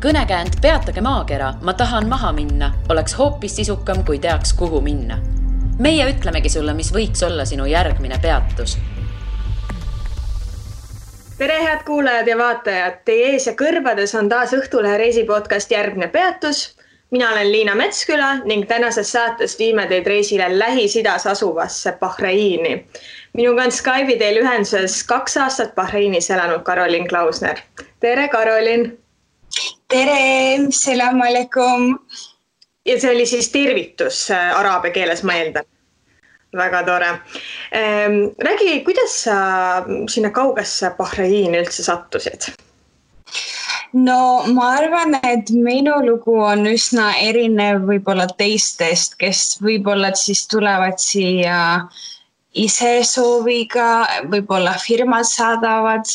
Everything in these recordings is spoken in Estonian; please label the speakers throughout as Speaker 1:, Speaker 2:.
Speaker 1: Kõnekäänd Peatage maakera, ma tahan maha minna, oleks hoopis sisukam, kui teaks, kuhu minna. Meie ütlemegi sulle, mis võiks olla sinu järgmine peatus.
Speaker 2: Tere, head kuulajad ja vaatajad! Teie ees ja kõrvades on taas Õhtulehe reisipodcast Järgmine peatus. Mina olen Liina Metsküla ning tänases saates viime teid reisile Lähis-Idas asuvasse Bahreini. Minuga on Skype'i teel ühenduses 2 aastat Bahreinis elanud Karolin Klausner. Tere, Karolin!
Speaker 3: Tere, salam alaikum!
Speaker 2: Ja see oli siis tervitus araabia keeles, ma eeldan. Väga tore. Räägi, kuidas sa sinna kaugesse Bahreini üldse sattusid?
Speaker 3: No ma arvan, et minu lugu on üsna erinev võib-olla teistest, kes võib-olla siis tulevad siia ise sooviga, võib-olla firmad saadavad.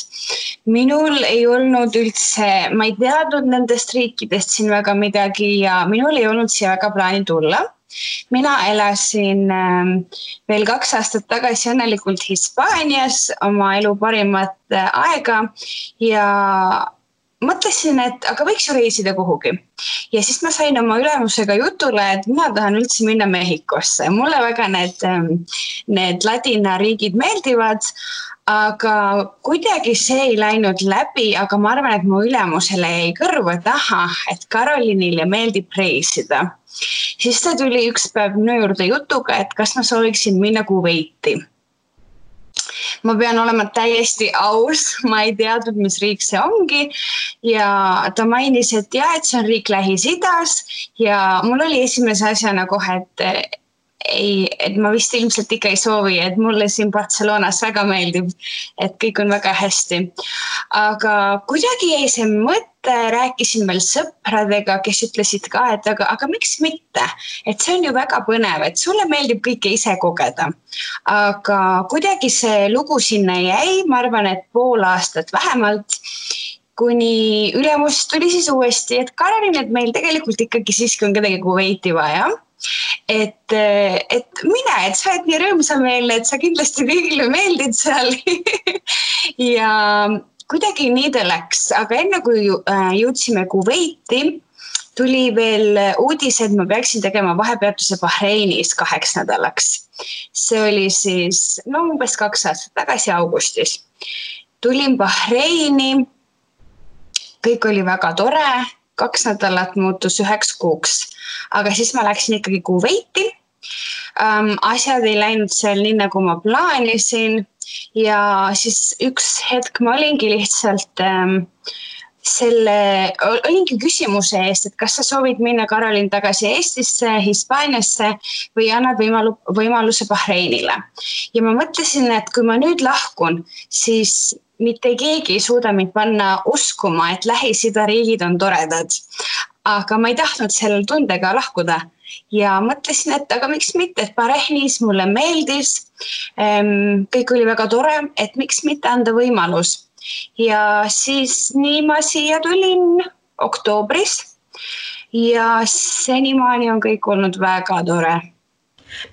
Speaker 3: Minul ei olnud üldse, ma ei teadnud nendest riikidest siin väga midagi ja minul ei olnud siia väga plaani tulla. Mina elasin veel 2 aastat tagasi õnnelikult Hispaanias oma elu parimat aega ja mõtlesin, et aga võiks ju reisida kuhugi. Ja siis ma sain oma ülemusega jutule, et mina tahan üldse minna Mehhikosse. Mulle väga need ladina riigid meeldivad, aga kuidagi see ei läinud läbi, aga ma arvan, et mu ülemusele jäi kõrvu, et et Karolinile meeldib reisida. Siis ta tuli üks päev minu juurde jutuga, et kas ma sooviksin minna Kuveiti. Ma pean olema täiesti aus, ma ei teadnud, mis riik see ongi ja ta mainis, et see on riik Lähis-Idas ja mul oli esimese asjana kohe, et ma vist ilmselt ikka ei soovi, et mulle siin Barcelonas väga meeldib, et kõik on väga hästi. Aga kuidagi jäi see mõte, rääkisin veel sõpradega, kes ütlesid ka, et aga miks mitte? Et see on ju väga põnev, et sulle meeldib kõike ise kogeda. Aga kuidagi see lugu sinna jäi, ma arvan, et 5 aastat vähemalt, kuni ülemus tuli siis uuesti, et Karolin, et meil tegelikult ikkagi siiski on kedagi Kuveiti vaja. Et mine, et sa oled nii rõõmsameelne, et sa kindlasti kõigile meeldid seal ja kuidagi nii ta läks, aga enne kui jõudsime Kuveiti, tuli veel uudis, et ma peaksin tegema vahepeatuse Bahreinis 2 nädalaks. See oli siis umbes 2 aastat tagasi augustis. Tulin Bahreini, kõik oli väga tore, 2 nädalat muutus 9 kuuks, aga siis ma läksin ikkagi Kuveiti. Asjad ei läinud seal nii, nagu ma plaanisin ja siis üks hetk ma olingi lihtsalt olingi küsimuse eest, et kas sa soovid minna Karolin tagasi Eestisse, Hispaaniasse või annad võimaluse Bahreinile. Ja ma mõtlesin, et kui ma nüüd lahkun, siis mitte keegi ei suuda mind panna uskuma, et Lähis-Ida riigid on toredad. Aga ma ei tahtnud sellel tundega lahkuda ja mõtlesin, et aga miks mitte, et Bahreinis mulle meeldis, kõik oli väga tore, et miks mitte anda võimalus. Ja siis nii ma siia tulin oktoobris ja senimaani on kõik olnud väga tore.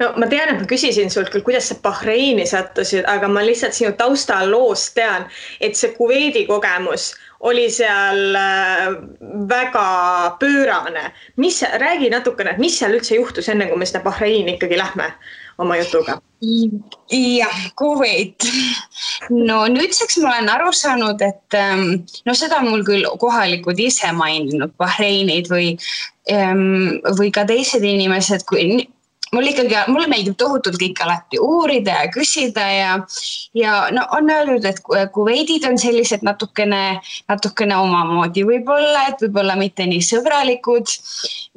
Speaker 2: No ma tean, et ma küsisin sult küll, kuidas sa Bahreini sattusid, aga ma lihtsalt sinu taustal loost tean, et see Kuveidi kogemus oli seal väga pöörane. Räägi natukene, et mis seal üldse juhtus enne, kui me sinna Bahreini ikkagi lähme oma jutuga?
Speaker 3: Jah, Kuveit. No nüüdseks ma olen aru saanud, et seda on mul küll kohalikud ise maininud Bahreinid või ka teised inimesed, mulle meeldib tohutult kõik alati uurida ja küsida ja on öeldud, et Kuveidid on sellised natukene omamoodi võib-olla, et võib-olla mitte nii sõbralikud,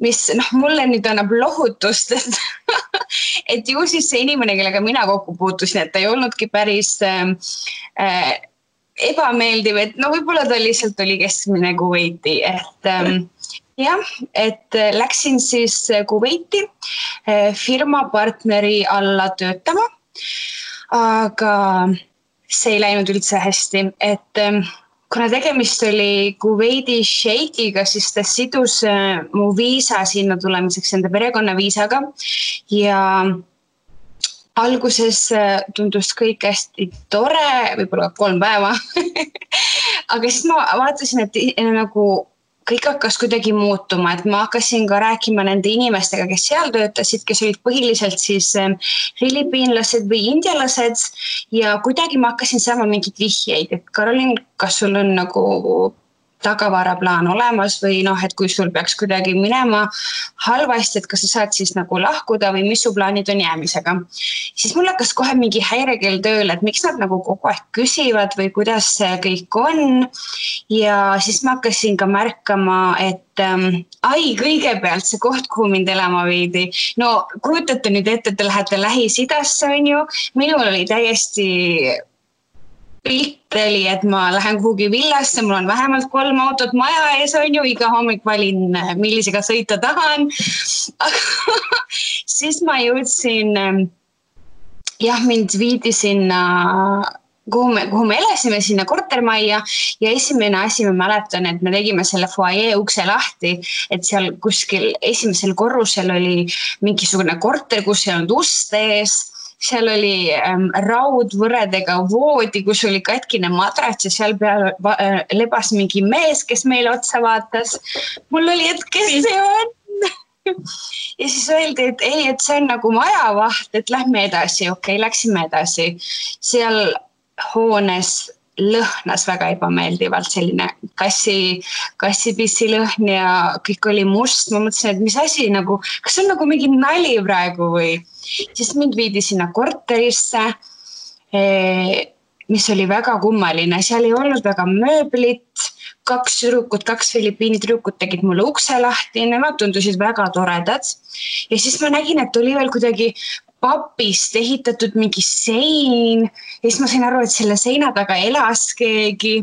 Speaker 3: mis mulle nüüd annab lohutust, et ju siis see inimene, kellega mina kokku puutusin, et ta ei olnudki päris ebameeldiv, et võib-olla ta lihtsalt oli keskmine Kuveiti, et läksin siis Kuveiti firma partneri alla töötama, aga see ei läinud üldse hästi, et kuna tegemist oli Kuveidi šeikiga, siis ta sidus mu viisa sinna tulemiseks enda perekonna viisaga ja alguses tundus kõik hästi tore, võib-olla 3 päeva, aga siis ma vaatasin, et nagu kõik hakkas kuidagi muutuma, et ma hakkasin ka rääkima nende inimestega, kes seal töötasid, kes olid põhiliselt siis filipiinlased või indialased ja kuidagi ma hakkasin saama mingid vihjeid, et Karolin, kas sul on nagu tagavaraplaan olemas või et kui sul peaks kuidagi minema halvasti, et kas sa saad siis nagu lahkuda või mis su plaanid on jäämisega. Siis mul hakkas kohe mingi häirekell tööle, et miks nad nagu kogu aeg küsivad või kuidas see kõik on. Ja siis ma hakkasin ka märkama, et kõigepealt see koht, kuhu mind elama viidi. No kujutate nüüd ette, et te lähete Lähis-Idasse, on ju. Minul oli täiesti pilt oli, et ma lähen kuhugi villasse, mul on vähemalt 3 autot maja ees, on ju, iga hommik valin, millisega sõita tahan. Siis ma jõudsin, mind viidi sinna, kuhu me elasime, sinna kortermajja ja esimene asi ma mäletan, et me tegime selle foajee ukse lahti, et seal kuskil esimesel korrusel oli mingisugune korter, kus ei olnud ust ees. Seal oli raudvõredega voodi, kus oli katkine madrats ja seal peal lebas mingi mees, kes meile otsa vaatas. Mul oli, et kes see on? Ja siis öeldi, et ei, et see on nagu majavaht, et lähme edasi. Okei, läksime edasi. Seal hoones lõhnas väga ebameeldivalt selline kassipissi lõhn ja kõik oli must. Ma mõtlesin, et mis asi nagu, kas on nagu mingi nali praegu või? Siis mind viidi sinna korterisse, mis oli väga kummaline. Seal ei olnud väga mööblit, 2 Filipiini tüdrukut tegid mulle ukse lahti, nemad tundusid väga toredad. Ja siis ma nägin, et oli veel kuidagi papist ehitatud mingi sein ja siis ma sain aru, et selle seina taga elas keegi.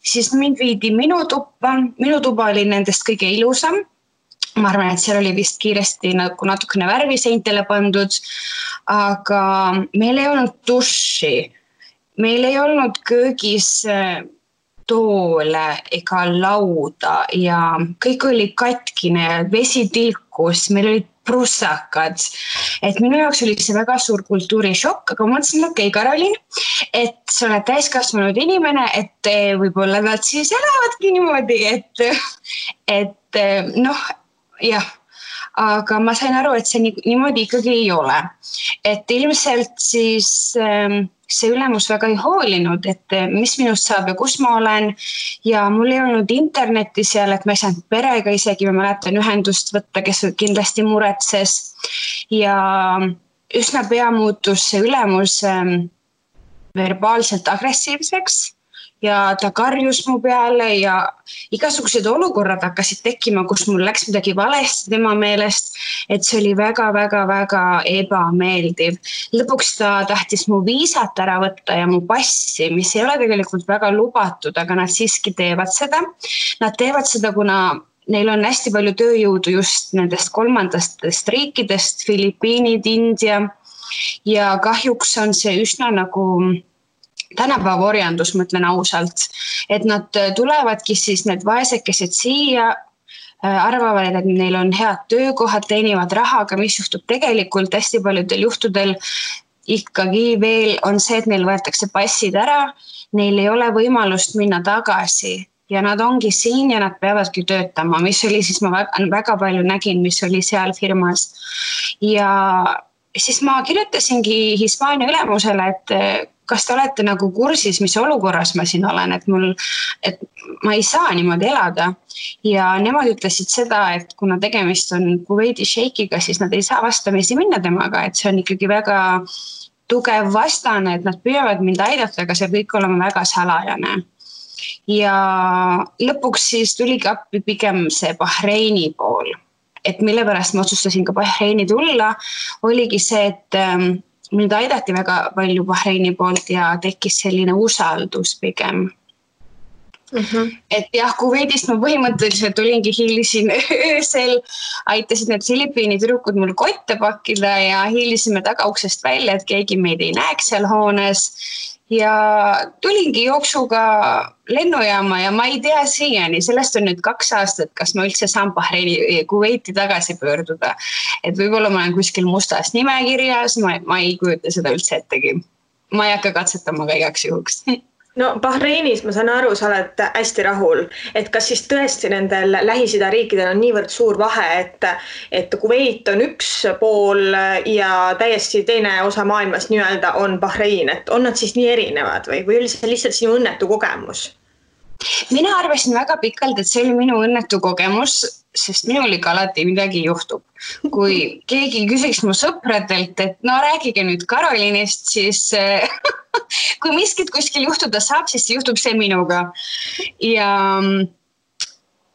Speaker 3: Siis mind viidi minu tuba oli nendest kõige ilusam. Ma arvan, et seal oli vist kiiresti nagu natukene värvi seintele pandud, aga meil ei olnud duši, meil ei olnud köögis toole ega lauda ja kõik oli katkine ja vesi tilkus, meil olid prussakad. Et minu jaoks oli see väga suur kultuurishokk, aga ma mõtlesin, okei, Karolin, et sa oled täiskasvanud inimene, et võib-olla nad siis elavadki niimoodi, et jah, aga ma sain aru, et see niimoodi ikkagi ei ole. Et ilmselt siis see ülemus väga ei hoolinud, et mis minust saab ja kus ma olen ja mul ei olnud internetti seal, et ma ei saanud perega isegi, ma mäletan ühendust võtta, kes kindlasti muretses ja üsna pea muutus see ülemus verbaalselt agressiivseks ja ta karjus mu peale ja igasugused olukorrad hakkasid tekkima, kus mul läks midagi valesti tema meelest, et see oli väga ebameeldiv. Lõpuks ta tahtis mu viisat ära võtta ja mu passi, mis ei ole tegelikult väga lubatud, aga nad siiski teevad seda. Nad teevad seda, kuna neil on hästi palju tööjõudu just nendest 3. riikidest, Filipiinid, India ja kahjuks on see üsna nagu tänapäeva orjandus, mõtlen ausalt, et nad tulevadki siis need vaesekesed siia, arvavad, et neil on head töökohad, teenivad raha, aga mis juhtub tegelikult hästi paljudel juhtudel ikkagi veel on see, et neil võetakse passid ära, neil ei ole võimalust minna tagasi ja nad ongi siin ja nad peavadki töötama, mis oli siis ma väga palju nägin, mis oli seal firmas ja siis ma kirjutasingi Hispaania ülemusele, et kas te olete nagu kursis, mis olukorras ma siin olen, et ma ei saa niimoodi elada. Ja nemad ütlesid seda, et kuna tegemist on Kuveidi šeikiga, siis nad ei saa vastamisi minna temaga, et see on ikkagi väga tugev vastane, et nad püüavad mind aidata, aga see kõik olema väga salajane. Ja lõpuks siis tuligi appi pigem see Bahreini pool, et mille pärast ma otsustasin ka Bahreini tulla, oligi see, et mind aidati väga palju Bahreini poolt ja tekkis selline usaldus pigem. Et jah, Kuveidist ma põhimõtteliselt olingi hiilisin öösel, aitasid need Filipiini tüdrukud mul kotte pakkida ja hiilisime tagauksest välja, et keegi meid ei näeks seal hoones. Ja tulingi jooksuga lennujaama ja ma ei tea siiani, sellest on nüüd 2 aastat, kas ma üldse saan Bahreini Kuveiti tagasi pöörduda. Et võib-olla ma olen kuskil mustas nimekirjas, ma ei kujuta seda üldse ettegi. Ma ei hakka katsetama ka igaks juhuks.
Speaker 2: No Bahreinis ma saan aru, sa oled hästi rahul, et kas siis tõesti nendel Lähis-Ida riikidel on niivõrd suur vahe, et Kuveit on üks pool ja täiesti teine osa maailmas nii-öelda on Bahrein, et on nad siis nii erinevad või oli see lihtsalt sinu õnnetu kogemus?
Speaker 3: Mina arvasin väga pikalt, et see oli minu õnnetu kogemus, sest minul ikka alati midagi juhtub. Kui keegi küsiks mu sõpradelt, et no rääkige nüüd Karolinist, siis kui miskit kuskil juhtuda saab, siis juhtub see minuga. Ja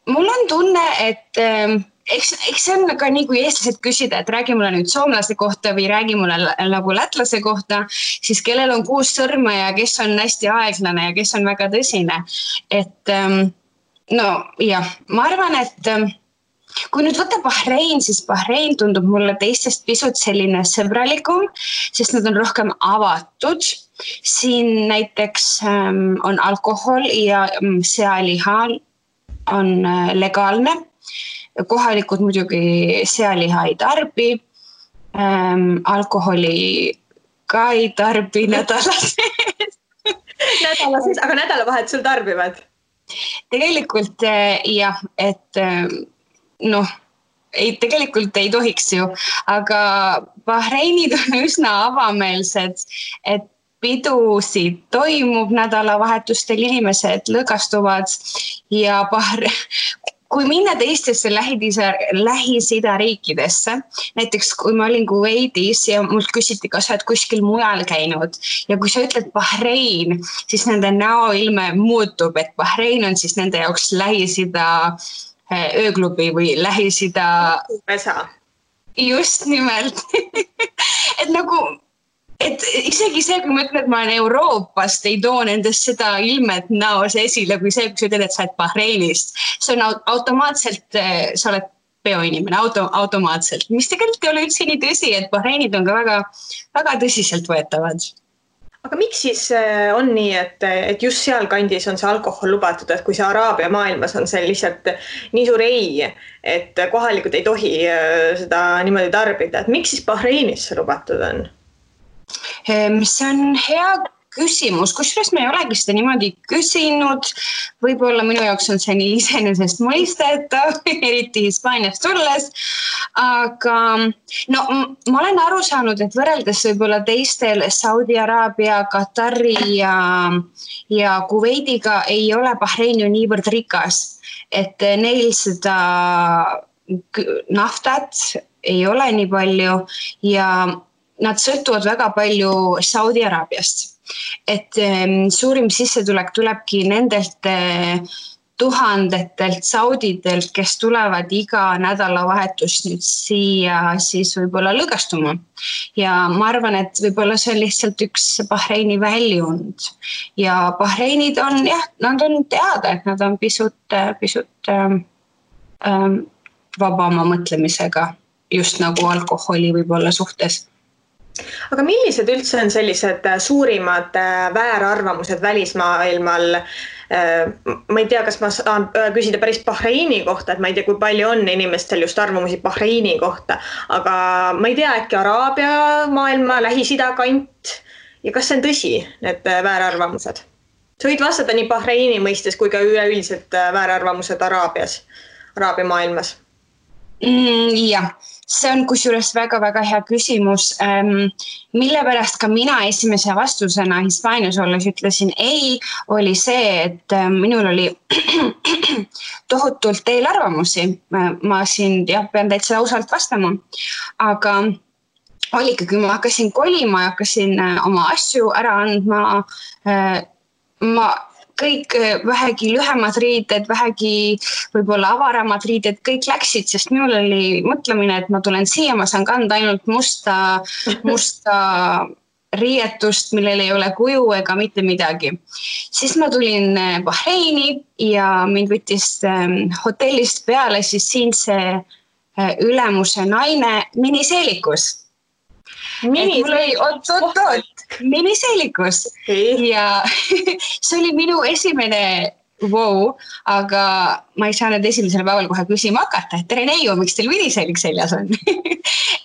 Speaker 3: mul on tunne, et eks see on ka nii, kui eestlased küsida, et räägi mulle nüüd soomlase kohta või räägi mulle nagu lätlase kohta, siis kellel on 6 sõrme ja kes on hästi aeglane ja kes on väga tõsine. Et no jah, ma arvan, et kui nüüd võtta Bahrein, siis Bahrein tundub mulle teistest pisut selline sõbralikum, sest nad on rohkem avatud. Siin näiteks on alkohol ja sealiha on legaalne. Kohalikud muidugi sealiha ei tarbi, alkoholi ka ei tarbi nädala sees.
Speaker 2: Aga nädalavahetusel tarbivad? Tegelikult
Speaker 3: jah, et tegelikult ei tohiks ju, aga Bahreinid on üsna avameelsed, et pidusid toimub nädalavahetustel, inimesed lõõgastuvad ja kui minna teistesse Lähis-Ida riikidesse, näiteks kui ma olin Kuveitis ja mult küsiti, kas sa oled kuskil mujal käinud ja kui sa ütled Bahrein, siis nende näoilme muutub, et Bahrein on siis nende jaoks Lähis-Ida ööklubi või Lähis-Ida. Just nimelt. Et isegi see, kui ma ütlen, et ma olen Euroopast, ei too nendest seda ilmet näos esile, kui see, kui sa ütled, et sa oled Bahreinist. See on automaatselt, sa oled peoinimene, automaatselt. Mis tegelikult ei ole üldse nii tõsi, et Bahreinid on ka väga, väga tõsiselt võetavad.
Speaker 2: Aga miks siis on nii, et just seal kandis on see alkohol lubatud, et kui see Araabia maailmas on see lihtsalt nii suur ei, et kohalikud ei tohi seda niimoodi tarbida, et miks siis Bahreinis see lubatud on?
Speaker 3: See on hea küsimus, kusjuures me ei olegi seda niimoodi küsinud. Võib-olla minu jaoks on see nii iseenesest mõistetav, eriti Hispaaniast tulles. Aga ma olen aru saanud, et võrreldes võib-olla teistel Saudi Araabia, Katari ja Kuveidiga ei ole Bahrein ju niivõrd rikas, et neil seda naftat ei ole nii palju ja nad sõltuvad väga palju Saudi Araabiast. Et suurim sissetulek tulebki nendelt tuhandetelt saudidelt, kes tulevad iga nädalavahetus nüüd siia siis võib-olla lõõgastuma. Ja ma arvan, et võib-olla see on lihtsalt üks Bahreini väljund. Ja Bahreinid on, nad on teada, et nad on pisut vabama mõtlemisega, just nagu alkoholi võib-olla suhtes.
Speaker 2: Aga millised üldse on sellised suurimad väärarvamused välismaailmal? Ma ei tea, kas ma saan küsida päris Bahreini kohta, et ma ei tea, kui palju on inimestel just arvamusi Bahreini kohta, aga ma ei tea, äkki Araabia maailma, Lähis-Ida kant ja kas see on tõsi, need väärarvamused? Sa võid vastata nii Bahreini mõistes kui ka üleüldiselt väärarvamused Araabia maailmas.
Speaker 3: Jah. See on kusjuures väga-väga hea küsimus, mille pärast ka mina esimese vastusena Hispaanias olles ütlesin ei, oli see, et minul oli tohutult eelarvamusi. Ma siin pean täitsa ausalt vastama, aga oli ikka, kui ma hakkasin kolima ja hakkasin oma asju ära andma, kõik vähegi lühemad riided, vähegi võib-olla avaramad riided, kõik läksid, sest minul oli mõtlemine, et ma tulen siia, ma saan kanda ainult musta riietust, millel ei ole kuju ega mitte midagi. Siis ma tulin Bahreini ja mind võttis hotellist peale siis siinse ülemuse naine miniseelikus. Miniseelikus. Ja see oli minu esimene wow, aga ma ei saa nüüd esimesel päeval kohe küsima hakata, et tere neiu, miks teil miniseelik seljas on?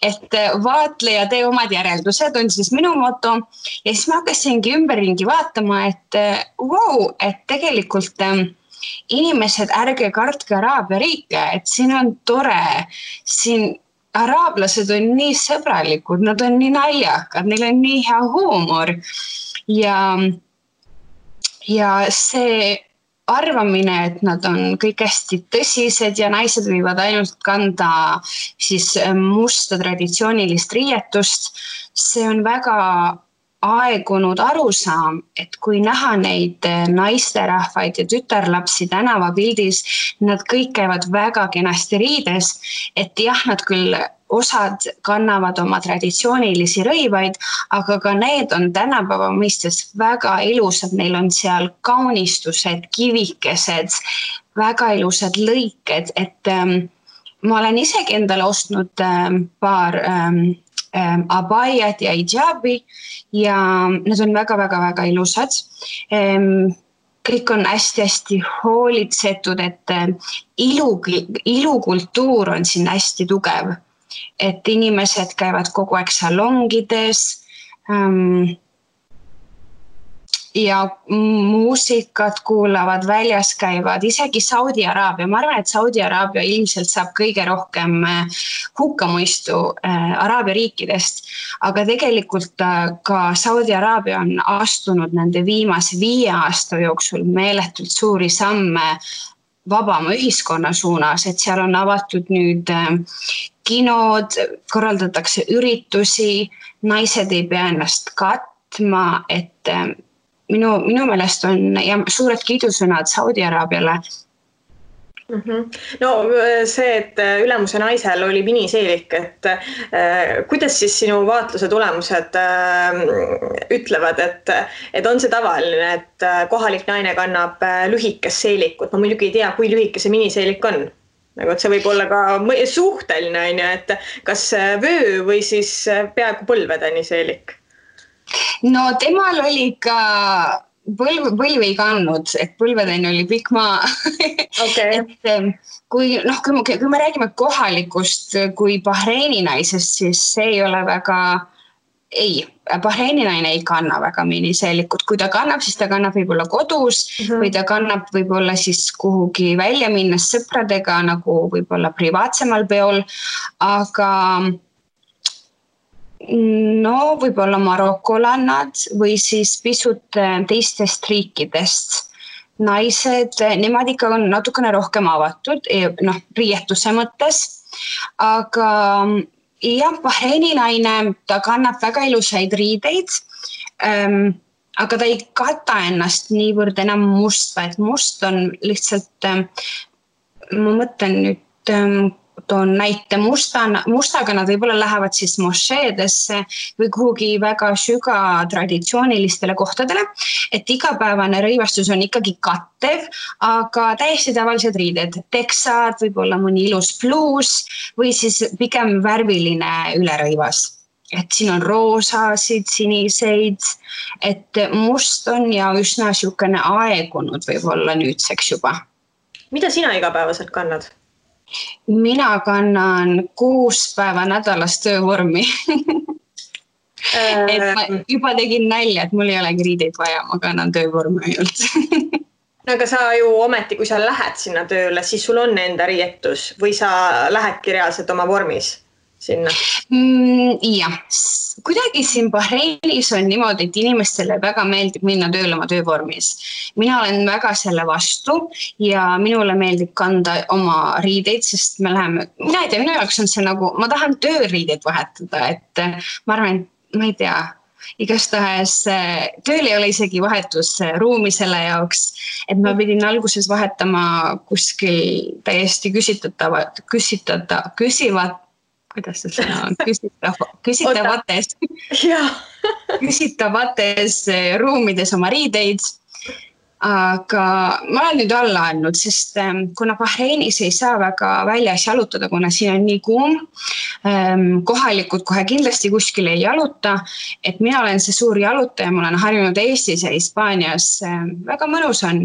Speaker 3: Et vaatle ja tee omad järeldused on siis minu moto ja siis ma hakkasingi ümberringi vaatama, et wow, et tegelikult inimesed, ärge kartke Araabia riike, et siin on tore, siin araablased on nii sõbralikud, nad on nii naljakad, neil on nii hea huumor ja see arvamine, et nad on kõik hästi tõsised ja naised võivad ainult kanda siis musta traditsioonilist riietust, see on väga aegunud arusaam, et kui näha neid naisterahvaid ja tütarlapsi tänavapildis, nad kõik käivad väga kenasti riides, et jah, nad küll osad kannavad oma traditsioonilisi rõivaid, aga ka need on tänapäeva mõistes väga ilusad, neil on seal kaunistused, kivikesed, väga ilusad lõiked, et ma olen isegi endale ostnud paar abaiat ja hijabi ja need on väga-väga-väga ilusad. Kõik on hästi-hästi hoolitsetud, et ilukultuur on siin hästi tugev. Et inimesed käivad kogu aeg salongides ja muusikat kuulavad, väljas käivad, isegi Saudi Araabia. Ma arvan, et Saudi Araabia ilmselt saab kõige rohkem hukkamõistu Araabia riikidest, aga tegelikult ka Saudi Araabia on astunud nende viimase 5 aasta jooksul meeletult suuri samme vabama ühiskonna suunas, et seal on avatud nüüd kinod, korraldatakse üritusi, naised ei pea ennast katma, et minu meelest on ja suured kiidusõnad Saudi Araabiale.
Speaker 2: No see, et ülemuse naisel oli miniseelik, et kuidas siis sinu vaatluse tulemused ütlevad, et on see tavaline, et kohalik naine kannab lühikest seelikut? Ma muidugi ei tea, kui lühike see miniseelik on. Nagu, et see võib olla ka suhteline, et kas vöö või siis peaaegu põlvedeni seelik?
Speaker 3: No temal oli ka põlv ei kandnud, et põlvedeni oli pikk maa.
Speaker 2: Okay.
Speaker 3: Et kui me räägime kohalikust kui Bahreini naisest, siis see ei ole väga... Bahreini naine ei kanna väga miniseelikut. Kui ta kannab, siis ta kannab võib-olla kodus või ta kannab võib-olla siis kuhugi välja minnes sõpradega nagu võib-olla privaatsemal peol, aga no võib-olla marokolannad või siis pisut teistest riikidest naised, nemad ikka on natukene rohkem avatud, riietuse mõttes, aga jah, Bahreini naine, ta kannab väga ilusaid riideid, aga ta ei kata ennast niivõrd enam musta, et must on lihtsalt, ma mõtlen nüüd, toon näite mustaga, nad võib-olla lähevad siis mošeedesse või kuhugi väga süga traditsioonilistele kohtadele, et igapäevane rõivastus on ikkagi kattev, aga täiesti tavalised riided, teksad, võib-olla mõni ilus pluus või siis pigem värviline ülerõivas. Et siin on roosasid, siniseid, et must on ja üsna siukene aegunud võib-olla nüüdseks juba.
Speaker 2: Mida sina igapäevaselt kannad?
Speaker 3: Mina kannan 6 päeva nädalas töövormi. Et ma juba tegin nalja, et mul ei olegi riideid vaja, ma kannan töövormi ainult.
Speaker 2: No aga sa ju ometi, kui sa lähed sinna tööle, siis sul on enda riietus või sa lähedki reaalselt oma vormis sinna?
Speaker 3: Jah, kuidagi siin Bahreinis on niimoodi, et inimestele väga meeldib minna tööle oma töövormis. Mina olen väga selle vastu ja minule meeldib kanda oma riideid, sest mina ei tea, minu jaoks on see nagu, ma tahan tööriideid vahetada, et ma arvan, et ma ei tea, igastahes tööl ei ole isegi vahetusruumi selle jaoks, et ma pidin alguses vahetama kuskil täiesti kuidas see sõna on? Küsitavates ruumides oma riideid, aga ma olen nüüd alla andnud, sest kuna Bahreinis ei saa väga väljas jalutada, kuna siin on nii kuum, kohalikud kohe kindlasti kuskil ei jaluta, et mina olen see suur jalutaja, ma olen harjunud Eestis ja Hispaanias, väga mõnus on,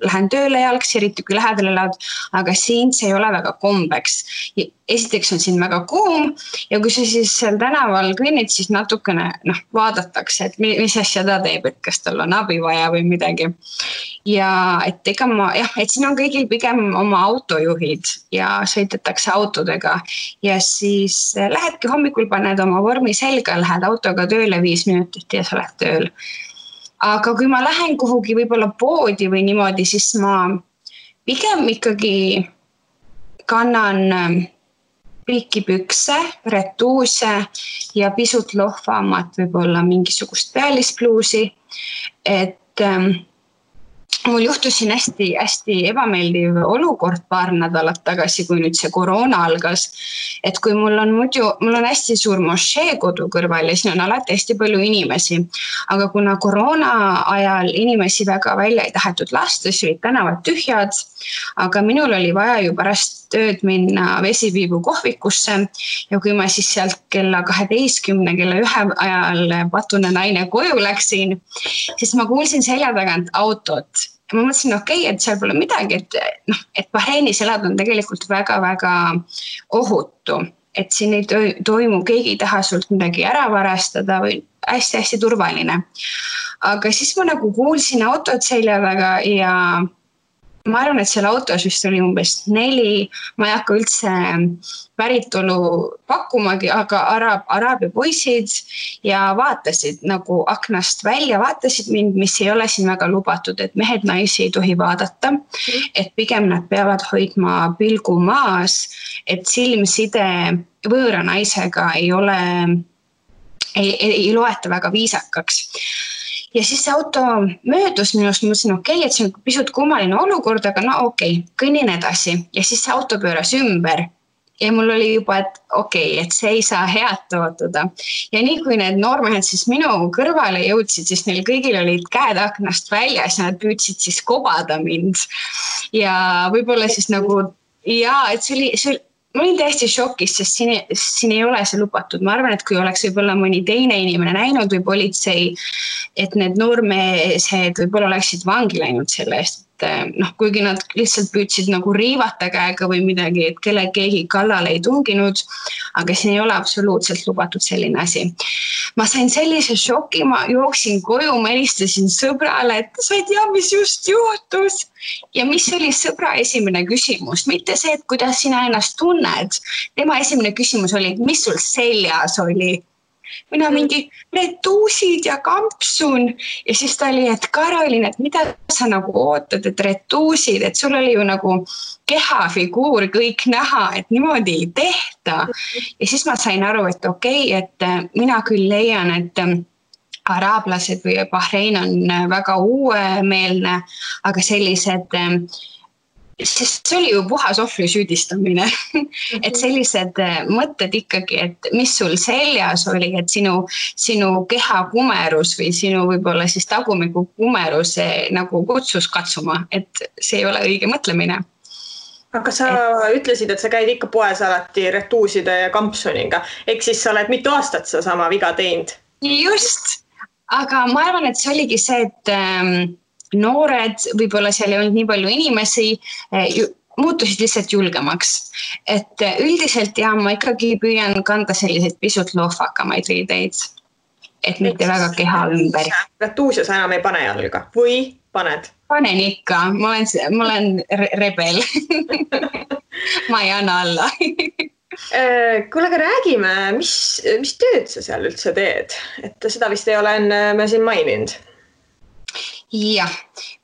Speaker 3: lähen tööle jalgsi, eriti kui lähedal elad, aga siin see ei ole väga kombeks. Esiteks on siin väga kuum ja kui sa siis seal tänaval kõnnid, siis natukene vaadatakse, et mis asja ta teeb, et kas tal on abi vaja või midagi. Ja et siin on kõigil pigem oma autojuhid ja sõidetakse autodega ja siis lähedki hommikul, paned oma vormi selga, lähed autoga tööle 5 minutit ja sa lähed tööl. Aga kui ma lähen kuhugi võib-olla poodi või niimoodi, siis ma pigem ikkagi kannan pikipükse, retuuse ja pisut lohvamat võib-olla mingisugust pealispluusi, et mul juhtus siin hästi ebameeldiv olukord paar nädalat tagasi, kui nüüd see koroona algas, et kui mul on hästi suur mošee kodu kõrval ja siin on alati hästi palju inimesi, aga kuna koroona ajal inimesi väga välja ei tahetud lasta, siis olid tänavad tühjad, aga minul oli vaja ju pärast tööd minna Vesipiibu kohvikusse ja kui ma siis sealt kella 12, kella 1 ajal patune naine koju läksin, siis ma kuulsin selja tagant autot. Ma mõtlesin, et seal pole midagi, et Bahreinis elada on tegelikult väga-väga ohutu, et siin ei toimu, keegi ei taha sult midagi ära varastada või hästi-hästi turvaline. Aga siis ma kuulsin autot selja taga ja ma arvan, et seal autos vist oli umbes 4, ma ei hakka üldse päritolu pakkumagi, aga araabia poisid ja vaatasid aknast välja, vaatasid mind, mis ei ole siin väga lubatud, et mehed naisi ei tohi vaadata, et pigem nad peavad hoidma pilgu maas, et silmside võõra naisega ei loeta väga viisakaks. Ja siis see auto möödus minust, mõtlesin, et see on pisut kummaline olukord, aga kõnnin edasi. Ja siis see auto pööras ümber ja mul oli juba, et see ei saa head tootuda. Ja nii kui need noormehed siis minu kõrvale jõudsid, siis neil kõigil olid käed aknast väljas ja nad püüdsid siis kobada mind. Ja võib-olla siis et see oli ma olin täiesti šokis, sest siin ei ole see lubatud. Ma arvan, et kui oleks võib-olla mõni teine inimene näinud või politsei, et need noormeesed võib-olla oleksid vangi läinud selle eest. Kuigi nad lihtsalt püüdsid riivata käega või midagi, et keegi kallale ei tunginud, aga siin ei ole absoluutselt lubatud selline asi. Ma sain sellise šoki, ma jooksin koju, ma helistasin sõbrale, et sa ei tea, mis just juhtus. Ja mis oli sõbra esimene küsimus? Mitte see, et kuidas sina ennast tunned. Tema esimene küsimus oli, et mis sul seljas oli? Mina mingi retuusid ja kampsun ja siis ta oli, et Karolin, et mida sa ootad, et retuusid, et sul oli ju kehafiguur kõik näha, et niimoodi ei tehta. Ja siis ma sain aru, et et mina küll leian, et araablased või Bahrein on väga uuemeelne, aga sellised sest see oli ju puhas ohvri süüdistamine, et sellised mõtted ikkagi, et mis sul seljas oli, et sinu keha kumerus või sinu võib-olla siis tagumiku kumerus kutsus katsuma, et see ei ole õige mõtlemine.
Speaker 2: Aga sa ütlesid, et sa käid ikka poes alati retuuside ja kampsuniga, ehk siis sa oled mitu aastat sa sama viga teinud?
Speaker 3: Just, aga ma arvan, et see oligi see, et noored, võib-olla seal ei olnud nii palju inimesi, muutusid lihtsalt julgemaks. Et üldiselt ma ikkagi püüan kanda selliseid pisut lohvakamaid riideid, et mitte väga keha ümber.
Speaker 2: Retuusia sa enam ei pane jalga või paned?
Speaker 3: Panen ikka, ma olen rebel. Ma ei anna alla.
Speaker 2: Kuule, aga räägime, mis tööd sa seal üldse teed? Et seda vist ei ole me siin maininud.
Speaker 3: Ja,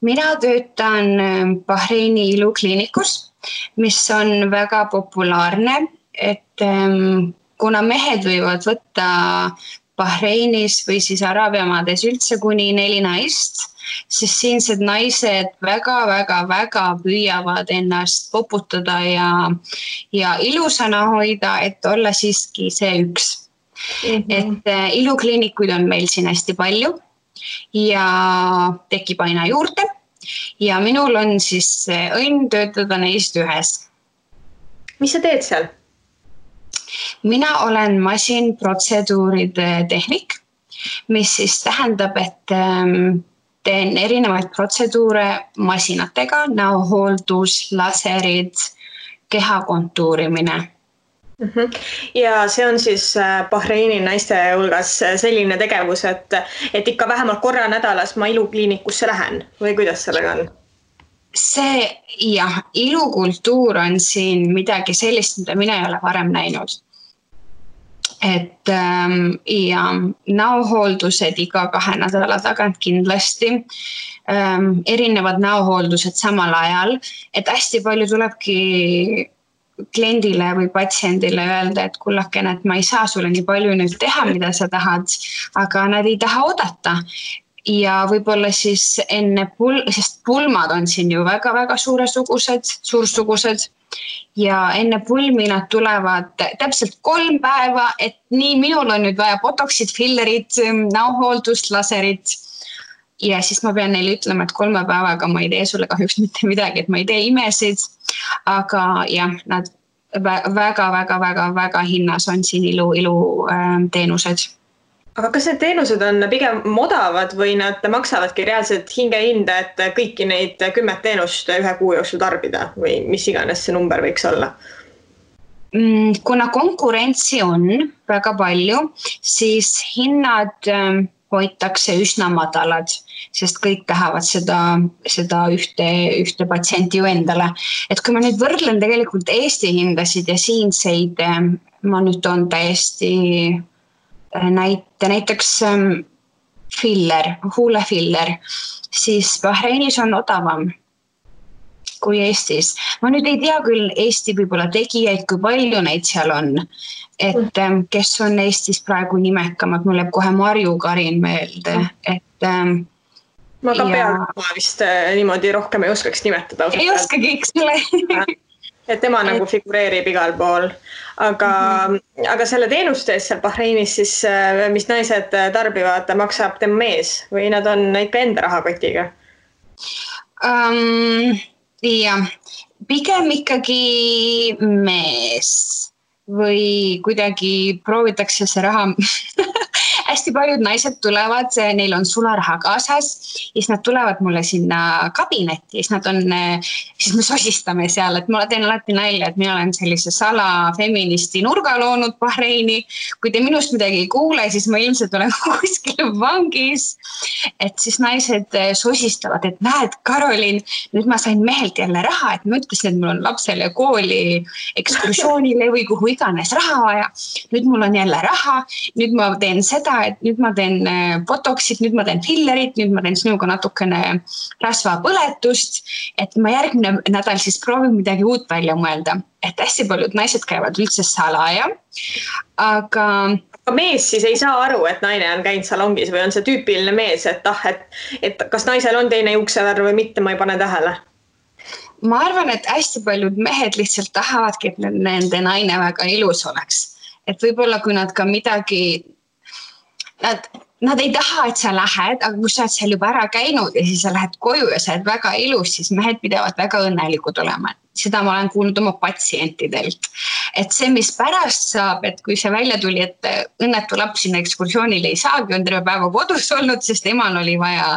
Speaker 3: mina töötan Bahreini ilukliinikus, mis on väga populaarne, et kuna mehed võivad võtta Bahreinis või siis Araabiamaades üldse kuni 4 naist, siis siinsed naised väga püüavad ennast poputada ja ilusana hoida, et olla siiski see üks. Et ilukliinikuid on meil siin hästi palju. Ja tekib aina juurde ja minul on siis õnn töötada neist ühes.
Speaker 2: Mis sa teed seal?
Speaker 3: Mina olen masinprotseduuride tehnik, mis siis tähendab, et teen erinevaid protseduure masinatega, näohooldus, laserid, keha kontuurimine.
Speaker 2: Ja see on siis Bahreini naiste hulgas selline tegevus, et ikka vähemalt korra nädalas ma ilukliinikusse lähen või kuidas sellega on?
Speaker 3: See jah, ilukultuur on siin midagi sellist, mida mina ei ole varem näinud. Et ja näohooldused iga 2 nädala tagant kindlasti, erinevad näohooldused samal ajal, et hästi palju tulebki kliendile või patsiendile öelda, et kullakene, et ma ei saa sulle nii palju nüüd teha, mida sa tahad, aga nad ei taha oodata. Ja võib-olla siis enne sest pulmad on siin ju väga-väga suursugused ja enne pulmi nad tulevad täpselt 3 päeva, et nii minul on nüüd vaja botoxid, fillerid, näohooldust, laserid. Ja siis ma pean neile ütlema, et 3 päevaga ma ei tee sulle kahjuks mitte midagi, et ma ei tee imesid, aga jah, nad väga hinnas on siin ilu teenused.
Speaker 2: Aga kas need teenused on pigem odavad või nad maksavadki reaalselt hingehinda, et kõiki neid 10 teenust 1 kuu jooksul tarbida või mis iganes see number võiks olla?
Speaker 3: Kuna konkurentsi on väga palju, siis hinnad hoitakse üsna madalad, sest kõik tahavad seda ühte patsienti ju endale. Et kui ma nüüd võrdlen tegelikult Eesti hindasid ja siinseid, ma nüüd on täiesti näiteks filler, huulefiller, siis Bahreinis on odavam kui Eestis. Ma nüüd ei tea küll Eesti võib-olla tegijaid, kui palju neid seal on. Et kes on Eestis praegu nimekamad, mul jääb kohe Marju Karin meelde.
Speaker 2: Ma ka peale vist niimoodi rohkem ei oskaks nimetada.
Speaker 3: Ei oskagi, eks ole.
Speaker 2: Et tema nagu figureerib igal pool. Aga selle teenuste eest seal Bahreinis siis, mis naised tarbivad, maksab tema mees või nad on ikka enda rahakotiga?
Speaker 3: Jah, pigem ikkagi mees või kuidagi proovitakse see raha. Hästi paljud naised tulevad, neil on sularaha kaasas, siis nad tulevad mulle sinna kabinetti, siis me sosistame seal, et ma teen alati nalja, et mina olen sellise salafeministi nurga loonud Bahreini. Kui te minust midagi ei kuule, siis ma ilmselt olen kuskil vangis. Et siis naised sosistavad, et näed, Karolin, nüüd ma sain mehelt jälle raha, et ma ütlesin, et mul on lapsele kooli ekskursioonile või kuhu iganes raha vaja. Nüüd mul on jälle raha, nüüd ma teen seda, et nüüd ma teen botoxid, nüüd ma teen fillerit, nüüd ma teen sinuga natukene rasvapõletust, et ma järgmine nädal siis proovin midagi uut välja mõelda. Et hästi paljud naised käivad üldse salaja, aga
Speaker 2: mees siis ei saa aru, et naine on käinud salongis või on see tüüpiline mees, et kas naisel on teine juuksevärv või mitte, ma ei pane tähele.
Speaker 3: Ma arvan, et hästi paljud mehed lihtsalt tahavadki, et nende naine väga ilus oleks. Et võib-olla kui nad ka midagi Nad ei taha, et sa lähed, aga kui sa oled seal juba ära käinud ja siis sa lähed koju ja sa oled väga ilus, siis mehed pidavad väga õnnelikud olema. Seda ma olen kuulnud oma patsientidelt. Et see, mis pärast saab, et kui see välja tuli, et õnnetu laps sinna ekskursioonile ei saagi, on terve päeva kodus olnud, sest emal oli vaja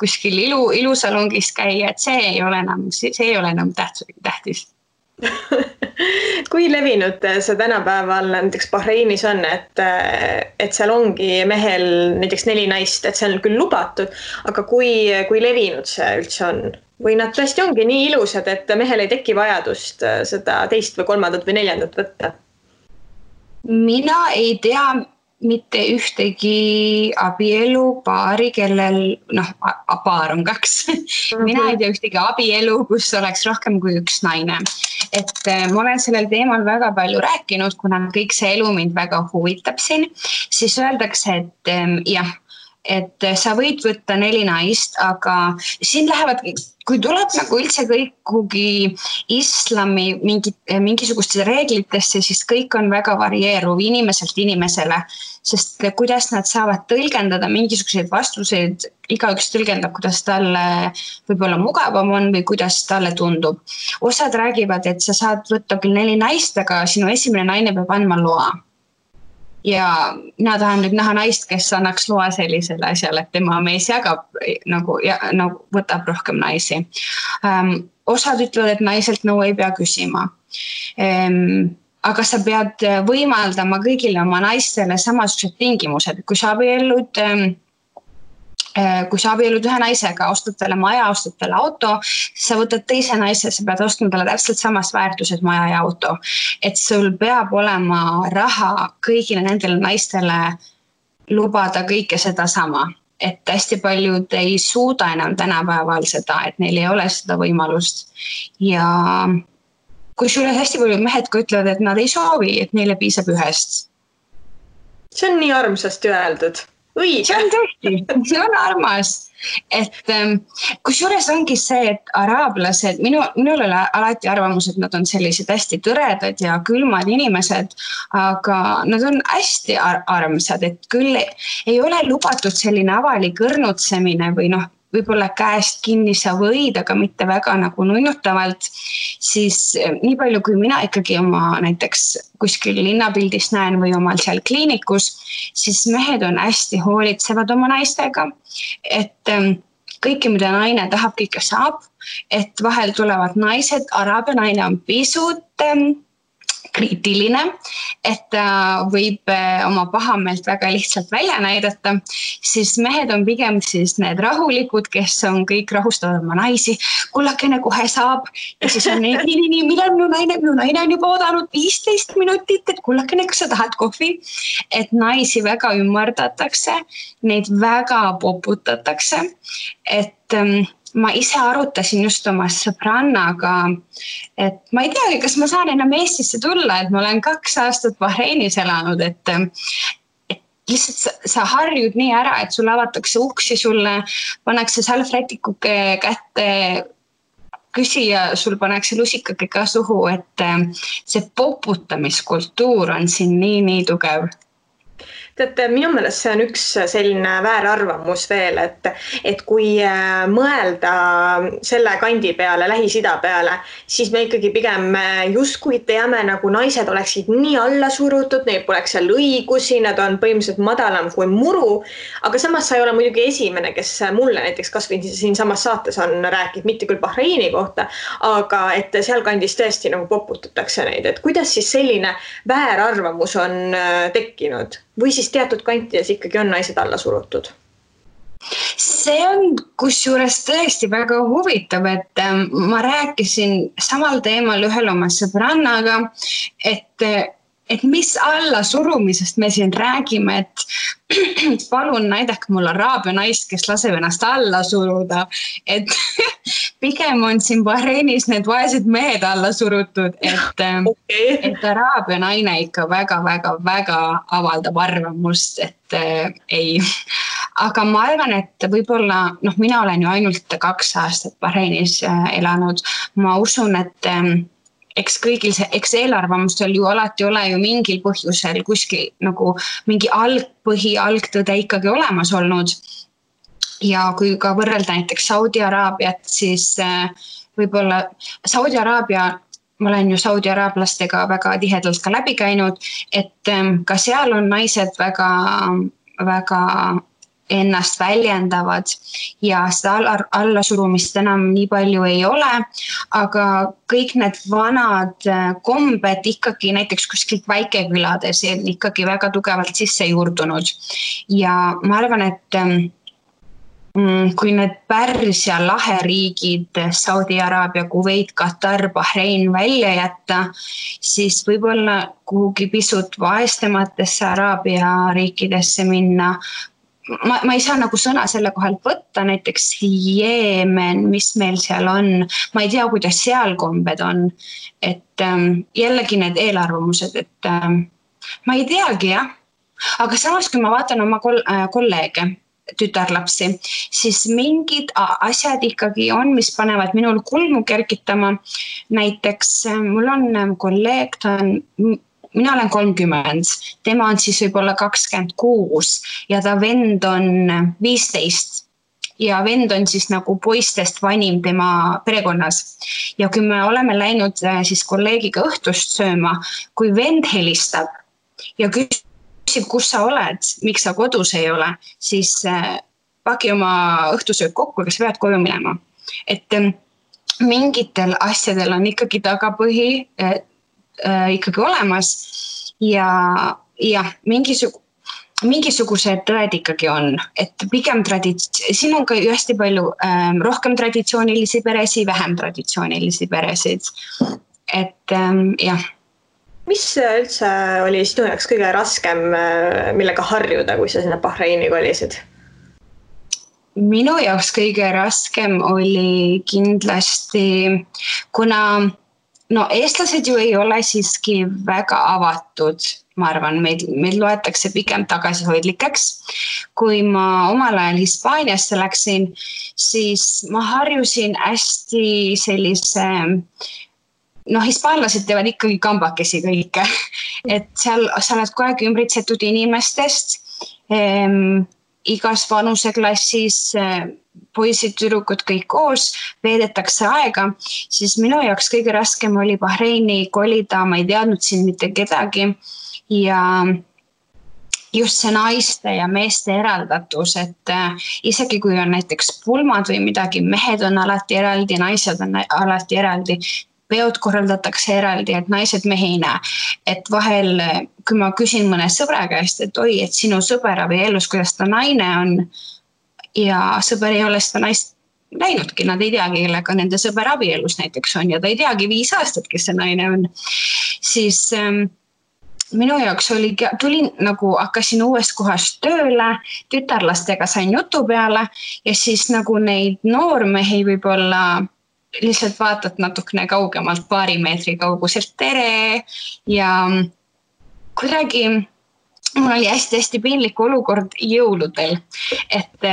Speaker 3: kuskil ilusalongis käia, et see ei ole enam tähtis.
Speaker 2: Kui levinud see tänapäeval näiteks Bahreinis on, et seal ongi mehel näiteks 4 naist, et see on küll lubatud, aga kui levinud see üldse on? Või nad tõesti ongi nii ilusad, et mehel ei teki vajadust seda 2. või 3. või 4. võtta?
Speaker 3: Mina ei tea mitte ühtegi abielupaari, kellel, paar on 2. Mina ei tea ühtegi abielu, kus oleks rohkem kui 1 naine. Et ma olen sellel teemal väga palju rääkinud, kuna kõik see elu mind väga huvitab siin, siis öeldakse, et jah, et sa võid võtta 4 naist, aga siin lähevad, kui tuleb nagu üldse kõik kuhugi islami mingisugustesse reeglitesse, siis kõik on väga varieeruv inimeselt inimesele, sest kuidas nad saavad tõlgendada mingisuguseid vastuseid, igaüks tõlgendab, kuidas talle võib-olla mugavam on või kuidas talle tundub. Osad räägivad, et sa saad võtta küll 4 naist, aga sinu esimene naine peab andma loa. Ja mina tahan nüüd näha naist, kes annaks loa sellisele asjale, et tema mees jagab, nagu võtab rohkem naisi. Osad ütlevad, et naiselt nõu ei pea küsima. Aga sa pead võimaldama kõigile oma naistele samasugused tingimused. Kui sa abiellud ühe naisega, ostad talle maja, ostad talle auto, sa võtad teise naise, sa pead ostma talle täpselt samas väärtuses maja ja auto. Et sul peab olema raha kõigile nendele naistele lubada kõike seda sama. Et hästi paljud ei suuda enam tänapäeval seda, et neil ei ole seda võimalust. Ja kui sulle hästi paljud mehed ka ütlevad, et nad ei soovi, et neile piisab ühest.
Speaker 2: See on nii armsasti öeldud. Õige.
Speaker 3: See on tõesti, see on armas. Et kusjuures ongi see, et araablased, minul oli alati arvamus, et nad on sellised hästi tõredad ja külmad inimesed, aga nad on hästi armsad, et küll ei ole lubatud selline avalik õrnutsemine või võib-olla käest kinni sa võid, aga mitte väga nagu nunnutavalt, siis nii palju, kui mina ikkagi oma näiteks kuskil linnapildis näen või omal seal kliinikus, siis mehed on hästi hoolitsevad oma naistega, et kõike, mida naine tahab, kõike saab, et vahel tulevad naised, araabia naine on pisut kriitiline, et ta võib oma pahameelt väga lihtsalt välja näidata, siis mehed on pigem siis need rahulikud, kes on kõik rahustavad oma naisi, kullakene kohe saab ja siis on nii, millal minu naine on juba oodanud 15 minutit, et kullakene, kas sa tahad kohvi, et naisi väga ümardatakse, neid väga poputatakse, et ma ise arutasin just oma sõbrannaga, et ma ei teagi, kas ma saan enam Eestisse tulla, et ma olen 2 aastat Bahreinis elanud, et lihtsalt sa harjud nii ära, et sulle avatakse uksi, sulle pannakse salvrätikuke kätte, küsija, sul pannakse lusikake ka suhu, et see poputamiskultuur on siin nii tugev.
Speaker 2: Teate, minu meelest see on üks selline väärarvamus veel, et kui mõelda selle kandi peale, Lähis-Ida peale, siis me ikkagi pigem justkui teame, nagu naised oleksid nii alla surutud, neil poleks seal õigusi, nad on põhimõtteliselt madalam kui muru, aga samas sa ei ole muidugi esimene, kes mulle näiteks kas või siin samas saates on rääkinud, mitte küll Bahreini kohta, aga et seal kandis tõesti nagu poputatakse neid, et kuidas siis selline väärarvamus on tekkinud? Või siis teatud kantides ikkagi on naised alla surutud?
Speaker 3: See on kusjuures tõesti väga huvitav, et ma rääkisin samal teemal ühel oma sõbrannaga, et mis alla surumisest me siin räägime, et palun näidake mul araabia naist, kes laseb ennast alla suruda, et pigem on siin Bahreinis need vaesed mehed alla surutud, et araabia naine ikka väga avaldab arvamust, et ei. Aga ma arvan, et võib-olla, mina olen ju ainult 2 aastat Bahreinis elanud, ma usun, et eks eelarvamustel ju alati ole ju mingil põhjusel kuskil nagu mingi algtõde ikkagi olemas olnud. Ja kui ka võrrelda näiteks Saudi Araabiat, siis võib-olla Saudi Araabia, ma olen ju Saudi araablastega väga tihedalt ka läbi käinud, et ka seal on naised väga ennast väljendavad ja seda allasurumist enam nii palju ei ole, aga kõik need vanad kombed ikkagi näiteks kuskilt väikekülades on ikkagi väga tugevalt sisse juurdunud. Ja ma arvan, et kui need Pärsia laheriigid, Saudi Araabia, Kuveit, Katar, Bahrein välja jätta, siis võib-olla kuhugi pisut vaestematesse Araabia riikidesse minna. Ma ei saa nagu sõna selle kohalt võtta, näiteks Jeemen, mis meil seal on, ma ei tea, kuidas seal kombed on, et jällegi need eelarvamused, et ma ei teagi jah, aga samas kui ma vaatan oma kolleege, tütarlapsi, siis mingid asjad ikkagi on, mis panevad minul kulmu kergitama. Näiteks mul on kolleeg, mina olen 30, tema on siis võib-olla 26 ja ta vend on 15 ja vend on siis nagu poistest vanim tema perekonnas. Ja kui me oleme läinud siis kolleegiga õhtust sööma, kui vend helistab ja küsib, kus sa oled, miks sa kodus ei ole, siis paki oma õhtusöök kokku, kas pead koju minema. Et mingitel asjadel on ikkagi tagapõhi ikkagi olemas ja mingisugused tõed ikkagi on, et pigem siin on ka ju hästi palju rohkem traditsioonilisi peresid, vähem traditsioonilisi peresid. Et jah.
Speaker 2: Mis üldse oli sinu jaoks kõige raskem, millega harjuda, kui sa sinna Bahreini kolisid?
Speaker 3: Minu jaoks kõige raskem oli kindlasti, kuna eestlased ju ei ole siiski väga avatud, ma arvan, meil loetakse pigem tagasihoidlikeks. Kui ma omal ajal Hispaaniasse läksin, siis ma harjusin hästi sellise... hispaanlased teevad ikkagi kambakesi kõike, et seal sa oled kogu aeg ümbritsetud inimestest, igas vanuseklassis poisid, tüdrukud kõik koos, veedetakse aega, siis minu jaoks kõige raskem oli Bahreini kolida, ma ei teadnud siin mitte kedagi ja just see naiste ja meeste eraldatus, et isegi kui on näiteks pulmad või midagi, mehed on alati eraldi, naised on alati eraldi, peod korraldatakse eraldi, et naised mehi ei näe. Et vahel, kui ma küsin mõne sõbra käest, et oi, et sinu sõber abielus, kuidas ta naine on ja sõber ei ole seda naist näinudki, nad ei teagi, kellega nende sõber abielus näiteks on ja ta ei teagi 5 aastat, kes see naine on. Siis minu jaoks tulin nagu hakkasin uuest kohast tööle, tütarlastega sain jutu peale ja siis nagu neid noormehi võib-olla lihtsalt vaatad natukene kaugemalt, 2 meetri kauguselt tere ja kuidagi mul oli hästi piinlik olukord jõuludel, et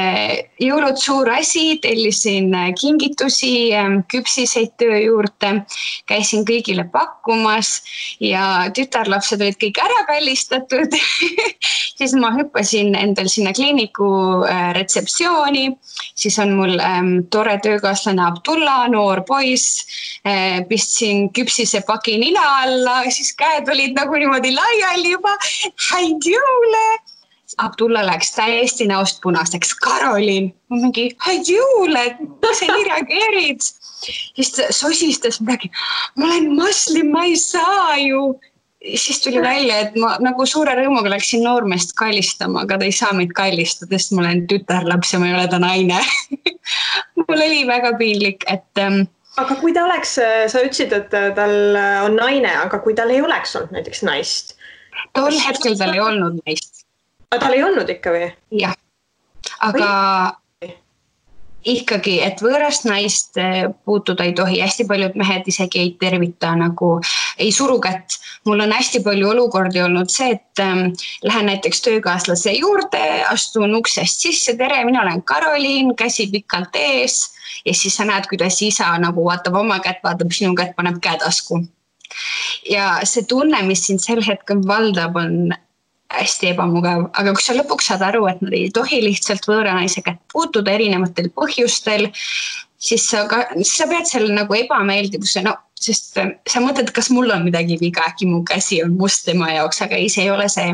Speaker 3: jõulud suur asi, tellisin kingitusi, küpsiseid töö juurde, käisin kõigile pakkumas ja tütarlapsed olid kõik ära kallistatud. Siis ma hüppasin endal sinna kliiniku retseptsiooni, siis on mul tore töökaaslane Abdullah, noor poiss, pistsin küpsise paki nina alla, siis käed olid nagu niimoodi laiali juba, häid jõule. Abdullah läks täiesti näost punaseks. Karolin, ma mingi, häid jõule, kas sa nii reageerid? Siis ta sosistas midagi, ma olen muslim, ma ei saa ju. Siis tuli välja, et ma nagu suure rõõmuga läksin noormeest kallistama, aga ta ei saa meid kallistada, sest ma olen tütarlaps ja ma ei ole ta naine. Mul oli väga piinlik, et...
Speaker 2: Aga kui ta oleks, sa ütlesid, et tal on naine, aga kui tal ei oleks olnud näiteks naist?
Speaker 3: Tol hetkel tal ei olnud naist.
Speaker 2: Aga tal ei olnud ikka või?
Speaker 3: Jah, aga ikkagi, et võõrast naist puutuda ei tohi. Hästi paljud mehed isegi ei tervita, nagu ei suru kätt. Mul on hästi palju olukordi olnud see, et lähen näiteks töökaaslase juurde, astun uksest sisse, tere, mina olen Karolin, käsi pikalt ees ja siis sa näed, kuidas isa nagu vaatab oma kätt, vaatab sinu kätt, paneb käetasku. Ja see tunne, mis siin sel hetkel valdab, on hästi ebamugav, aga kui sa lõpuks saad aru, et nad ei tohi lihtsalt võõra naise kätt puutuda erinevatel põhjustel, siis sa pead selle nagu ebameeldivuse, sest sa mõtled, kas mul on midagi viga, äkki mu käsi on must tema jaoks, aga ei, see ei ole see,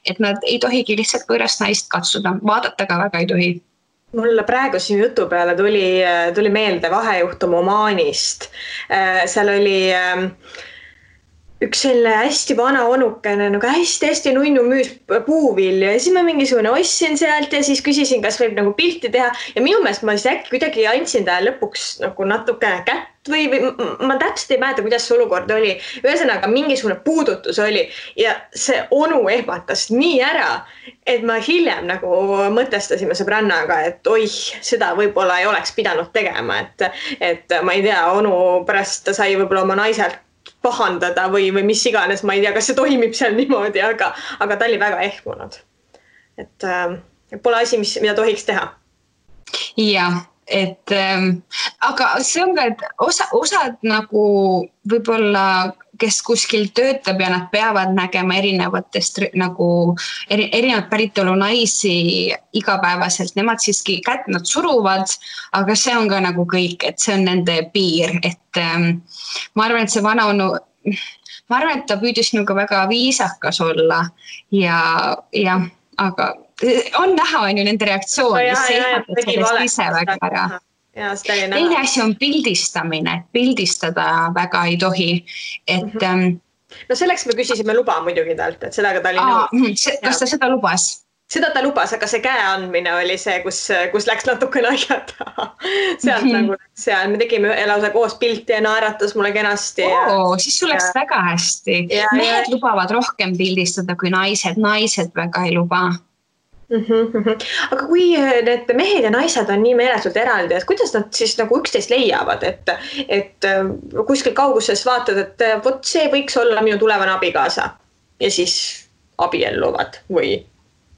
Speaker 3: et nad ei tohigi lihtsalt võõrast naist katsuda, vaadata ka väga ei tohi.
Speaker 2: Mulle praegu siin jutu peale tuli meelde vahejuhtum Omaanist. Seal oli üks selline hästi vana onukene, nagu hästi nunnu müüs puuvilju ja siis ma mingisugune ostsin sealt ja siis küsisin, kas võib nagu pilti teha ja minu meelest ma siis äkki kuidagi andsin ta lõpuks nagu natukene kätt või ma täpselt ei mäleta, kuidas see olukord oli. Ühesõnaga mingisugune puudutus oli ja see onu ehmatas nii ära, et ma hiljem nagu mõtestasime sõbrannaga, et oih, seda võib-olla ei oleks pidanud tegema, et ma ei tea, onu pärast ta sai võib-olla oma naiselt pahandada või mis iganes, ma ei tea, kas see toimib seal niimoodi, aga ta oli väga ehmunud. Et Pole asi, mida tohiks teha.
Speaker 3: Jah, et aga see on ka, et osad nagu võib-olla, kes kuskil töötab ja nad peavad nägema erinevatest nagu erinevat päritolu naisi igapäevaselt, nemad siiski kätt nad suruvad, aga see on ka nagu kõik, et see on nende piir, et ma arvan, et see vanaonu, ma arvan, et ta püüdis nagu väga viisakas olla ja aga on näha, on ju nende reaktsioon, mis seisavad sellest ise väga ära. Teine asi on pildistamine, pildistada väga ei tohi, et
Speaker 2: no selleks me küsisime luba muidugi talt, et seda ka ta oli nõus.
Speaker 3: Kas ta seda lubas?
Speaker 2: Seda ta lubas, aga see käe andmine oli see, kus läks natuke naljata. Sealt nagu seal, me tegime lausa koos pilti ja naeratas mulle kenasti.
Speaker 3: Siis sul läks väga hästi. Mehed lubavad rohkem pildistada kui naised väga ei luba.
Speaker 2: Aga kui need mehed ja naised on nii meeletult eraldi, et kuidas nad siis nagu üksteist leiavad, et kuskil kauguses vaatad, et vot see võiks olla minu tulevane abikaasa ja siis abielluvad või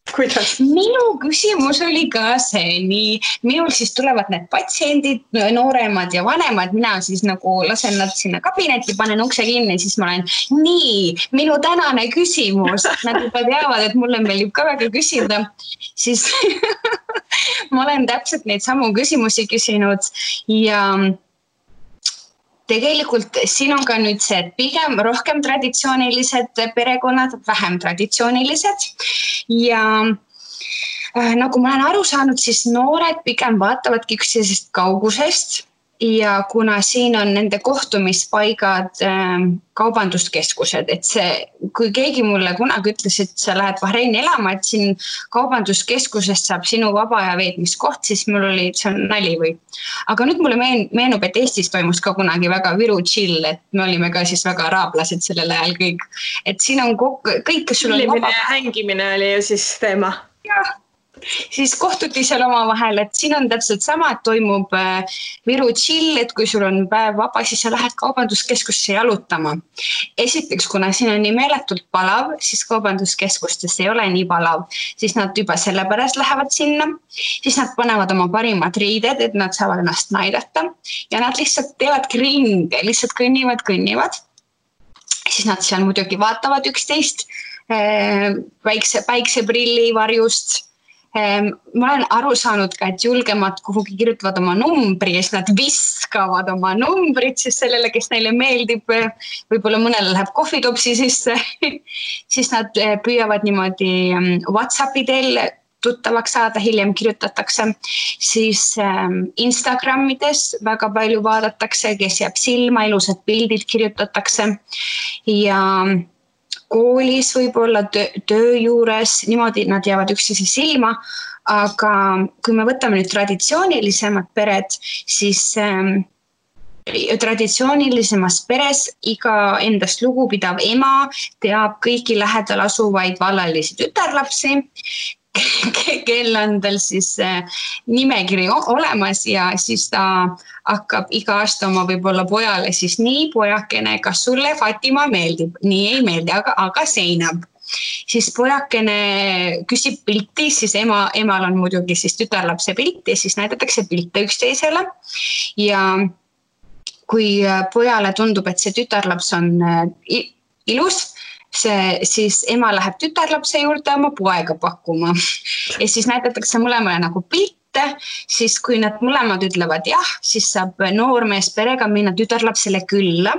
Speaker 2: kuidas?
Speaker 3: Minu küsimus oli ka see, nii minul siis tulevad need patsiendid, nooremad ja vanemad, mina siis nagu lasen nad sinna kabinetti, panen ukse kinni, siis ma olen nii, minu tänane küsimus, nad juba teavad, et mulle meeldib ka väga küsida, siis ma olen täpselt neid samu küsimusi küsinud ja tegelikult siin on ka nüüd see, et pigem rohkem traditsioonilised perekonnad, vähem traditsioonilised ja nagu ma olen aru saanud, siis noored pigem vaatavadki üksteisest kaugusest ja kuna siin on nende kohtumispaigad kaubanduskeskused, et see, kui keegi mulle kunagi ütles, et sa lähed Bahreini elama, et siin kaubanduskeskusest saab sinu vaba aja veetmiskoht, siis mul oli, see on nali või. Aga nüüd mulle meenub, et Eestis toimus ka kunagi väga Viru chill, et me olime ka siis väga araablased sellel ajal kõik. Et siin on kõik, kes sul on
Speaker 2: vaba. Hängimine oli ju siis teema.
Speaker 3: Jah. Siis kohtuti seal omavahel, et siin on täpselt sama, et toimub Viru chill, et kui sul on päev vaba, siis sa lähed kaubanduskeskusse jalutama. Esiteks, kuna siin on nii meeletult palav, siis kaubanduskeskustes ei ole nii palav, siis nad juba sellepärast lähevad sinna, siis nad panevad oma parimad riided, et nad saavad ennast näidata ja nad lihtsalt teevadki ringe, lihtsalt kõnnivad. Siis nad seal muidugi vaatavad üksteist päikseprilli varjust. Ma olen aru saanud ka, et julgemad kuhugi kirjutavad oma numbri ja siis nad viskavad oma numbrit siis sellele, kes neile meeldib, võib-olla mõnele läheb kohvitopsi sisse, siis nad püüavad niimoodi WhatsAppi teel tuttavaks saada, hiljem kirjutatakse, siis Instagramides väga palju vaadatakse, kes jääb silma, ilusad pildid kirjutatakse ja koolis võib-olla töö juures, niimoodi nad jäävad üksteise silma, aga kui me võtame nüüd traditsioonilisemad pered, siis traditsioonilisemas peres iga endast lugupidav ema teab kõiki lähedal asuvaid vallalisi tütarlapsi, kel on tal siis nimekiri olemas ja siis ta hakkab iga aasta oma võib-olla pojale siis nii pojakene, kas sulle Fatima meeldib? Nii ei meeldi, aga seinab. Siis pojakene küsib pilti, siis emal on muidugi siis tütarlapse pilti ja siis näidatakse pilte üksteisele ja kui pojale tundub, et see tütarlaps on ilus, siis ema läheb tütarlapse juurde oma poega pakkuma ja siis näidatakse mõlemale nagu pilte, siis kui nad mõlemad ütlevad jah, siis saab noormees perega minna tütarlapsele külla,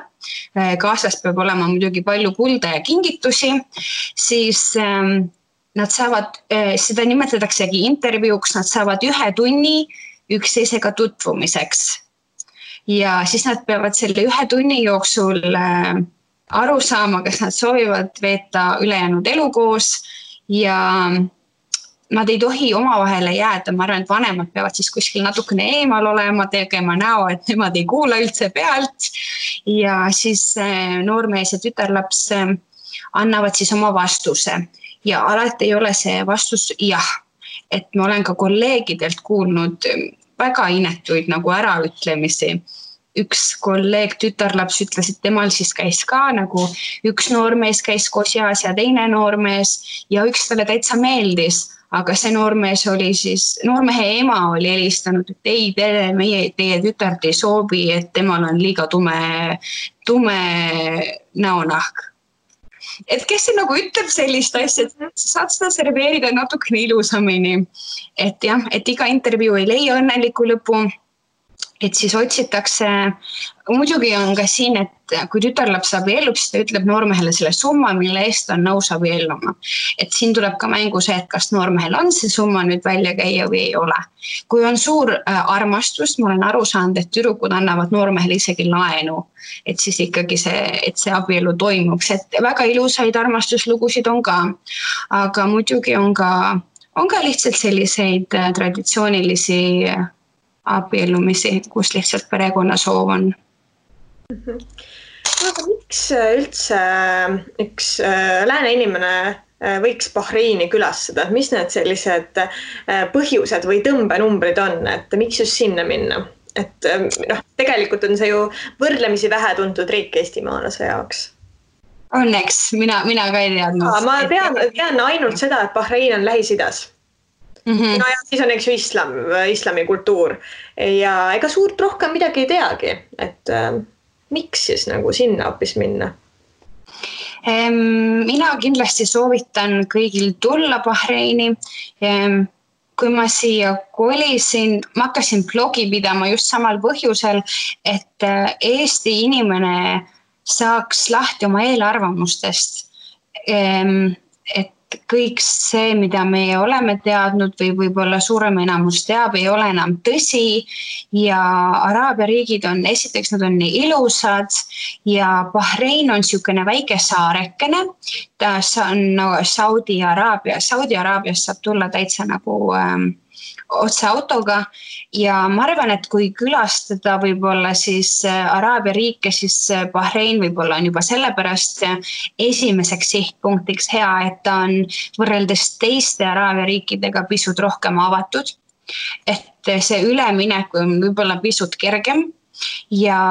Speaker 3: kaasas peab olema muidugi palju kulda ja kingitusi, siis nad saavad, seda nimetataksegi intervjuuks, nad saavad 1 tunni üksteisega tutvumiseks ja siis nad peavad selle 1 tunni jooksul aru saama, kas nad soovivad veeta ülejäänud elu koos ja nad ei tohi omavahele jääda, ma arvan, et vanemad peavad siis kuskil natukene eemal olema, tegema näo, et nemad ei kuula üldse pealt ja siis noormees ja tütarlaps annavad siis oma vastuse ja alati ei ole see vastus jah, et ma olen ka kolleegidelt kuulnud väga inetuid nagu äraütlemisi. üks kolleeg tütarlaps ütles, et temal siis käis ka nagu üks noormees käis koos jaas ja teine noormees ja üks talle täitsa meeldis. Aga see noormees oli siis, noormehe ema oli helistanud, et ei, teie tütart ei soovi, et temal on liiga tume näonahk. Et kes see nagu ütleb sellist asja, et saad seda serveerida natukene ilusamini. Et jah, et iga intervjuu ei leia õnneliku lõpu. Et siis otsitakse, muidugi on ka siin, et kui tütarlaps abiellub, siis ta ütleb noormehele selle summa, mille eest on nõus abielluma. Et siin tuleb ka mängu see, et kas noormehel on see summa nüüd välja käia või ei ole. Kui on suur armastus, ma olen aru saanud, et tüdrukud annavad noormehele isegi laenu, et siis ikkagi see abielu toimuks. Et väga ilusaid armastuslugusid on ka, aga muidugi on ka lihtsalt selliseid traditsioonilisi abiellumisi, kus lihtsalt perekonna soov on.
Speaker 2: Aga miks üldse üks lääne inimene võiks Bahreini külastada? Mis need sellised põhjused või tõmbenumbrid on, et miks just sinna minna? Et tegelikult on see ju võrdlemisi vähe tuntud riik eestimaalase jaoks.
Speaker 3: Õnneks, mina ka ei teadnud.
Speaker 2: Ma tean ainult seda, et Bahrein on Lähis-Idas. No ja siis on ju islami kultuur ja ega suurt rohkem midagi ei teagi, et miks siis nagu sinna hoopis minna?
Speaker 3: Mina kindlasti soovitan kõigil tulla Bahreini. Kui ma siia kolisin, ma hakkasin blogi pidama just samal põhjusel, et Eesti inimene saaks lahti oma eelarvamustest, et kõik see, mida me oleme teadnud või võib-olla suurem enamus teab, ei ole enam tõsi ja Araabia riigid on, esiteks nad on nii ilusad ja Bahrein on niisugune väike saarekene, ta on Saudi-Araabias saab tulla täitsa nagu otse autoga ja ma arvan, et kui külastada võib-olla siis Araabia riike, siis Bahrein võib-olla on juba sellepärast esimeseks sihtpunktiks hea, et ta on võrreldes teiste Araabia riikidega pisut rohkem avatud, et see üleminek on võib-olla pisut kergem ja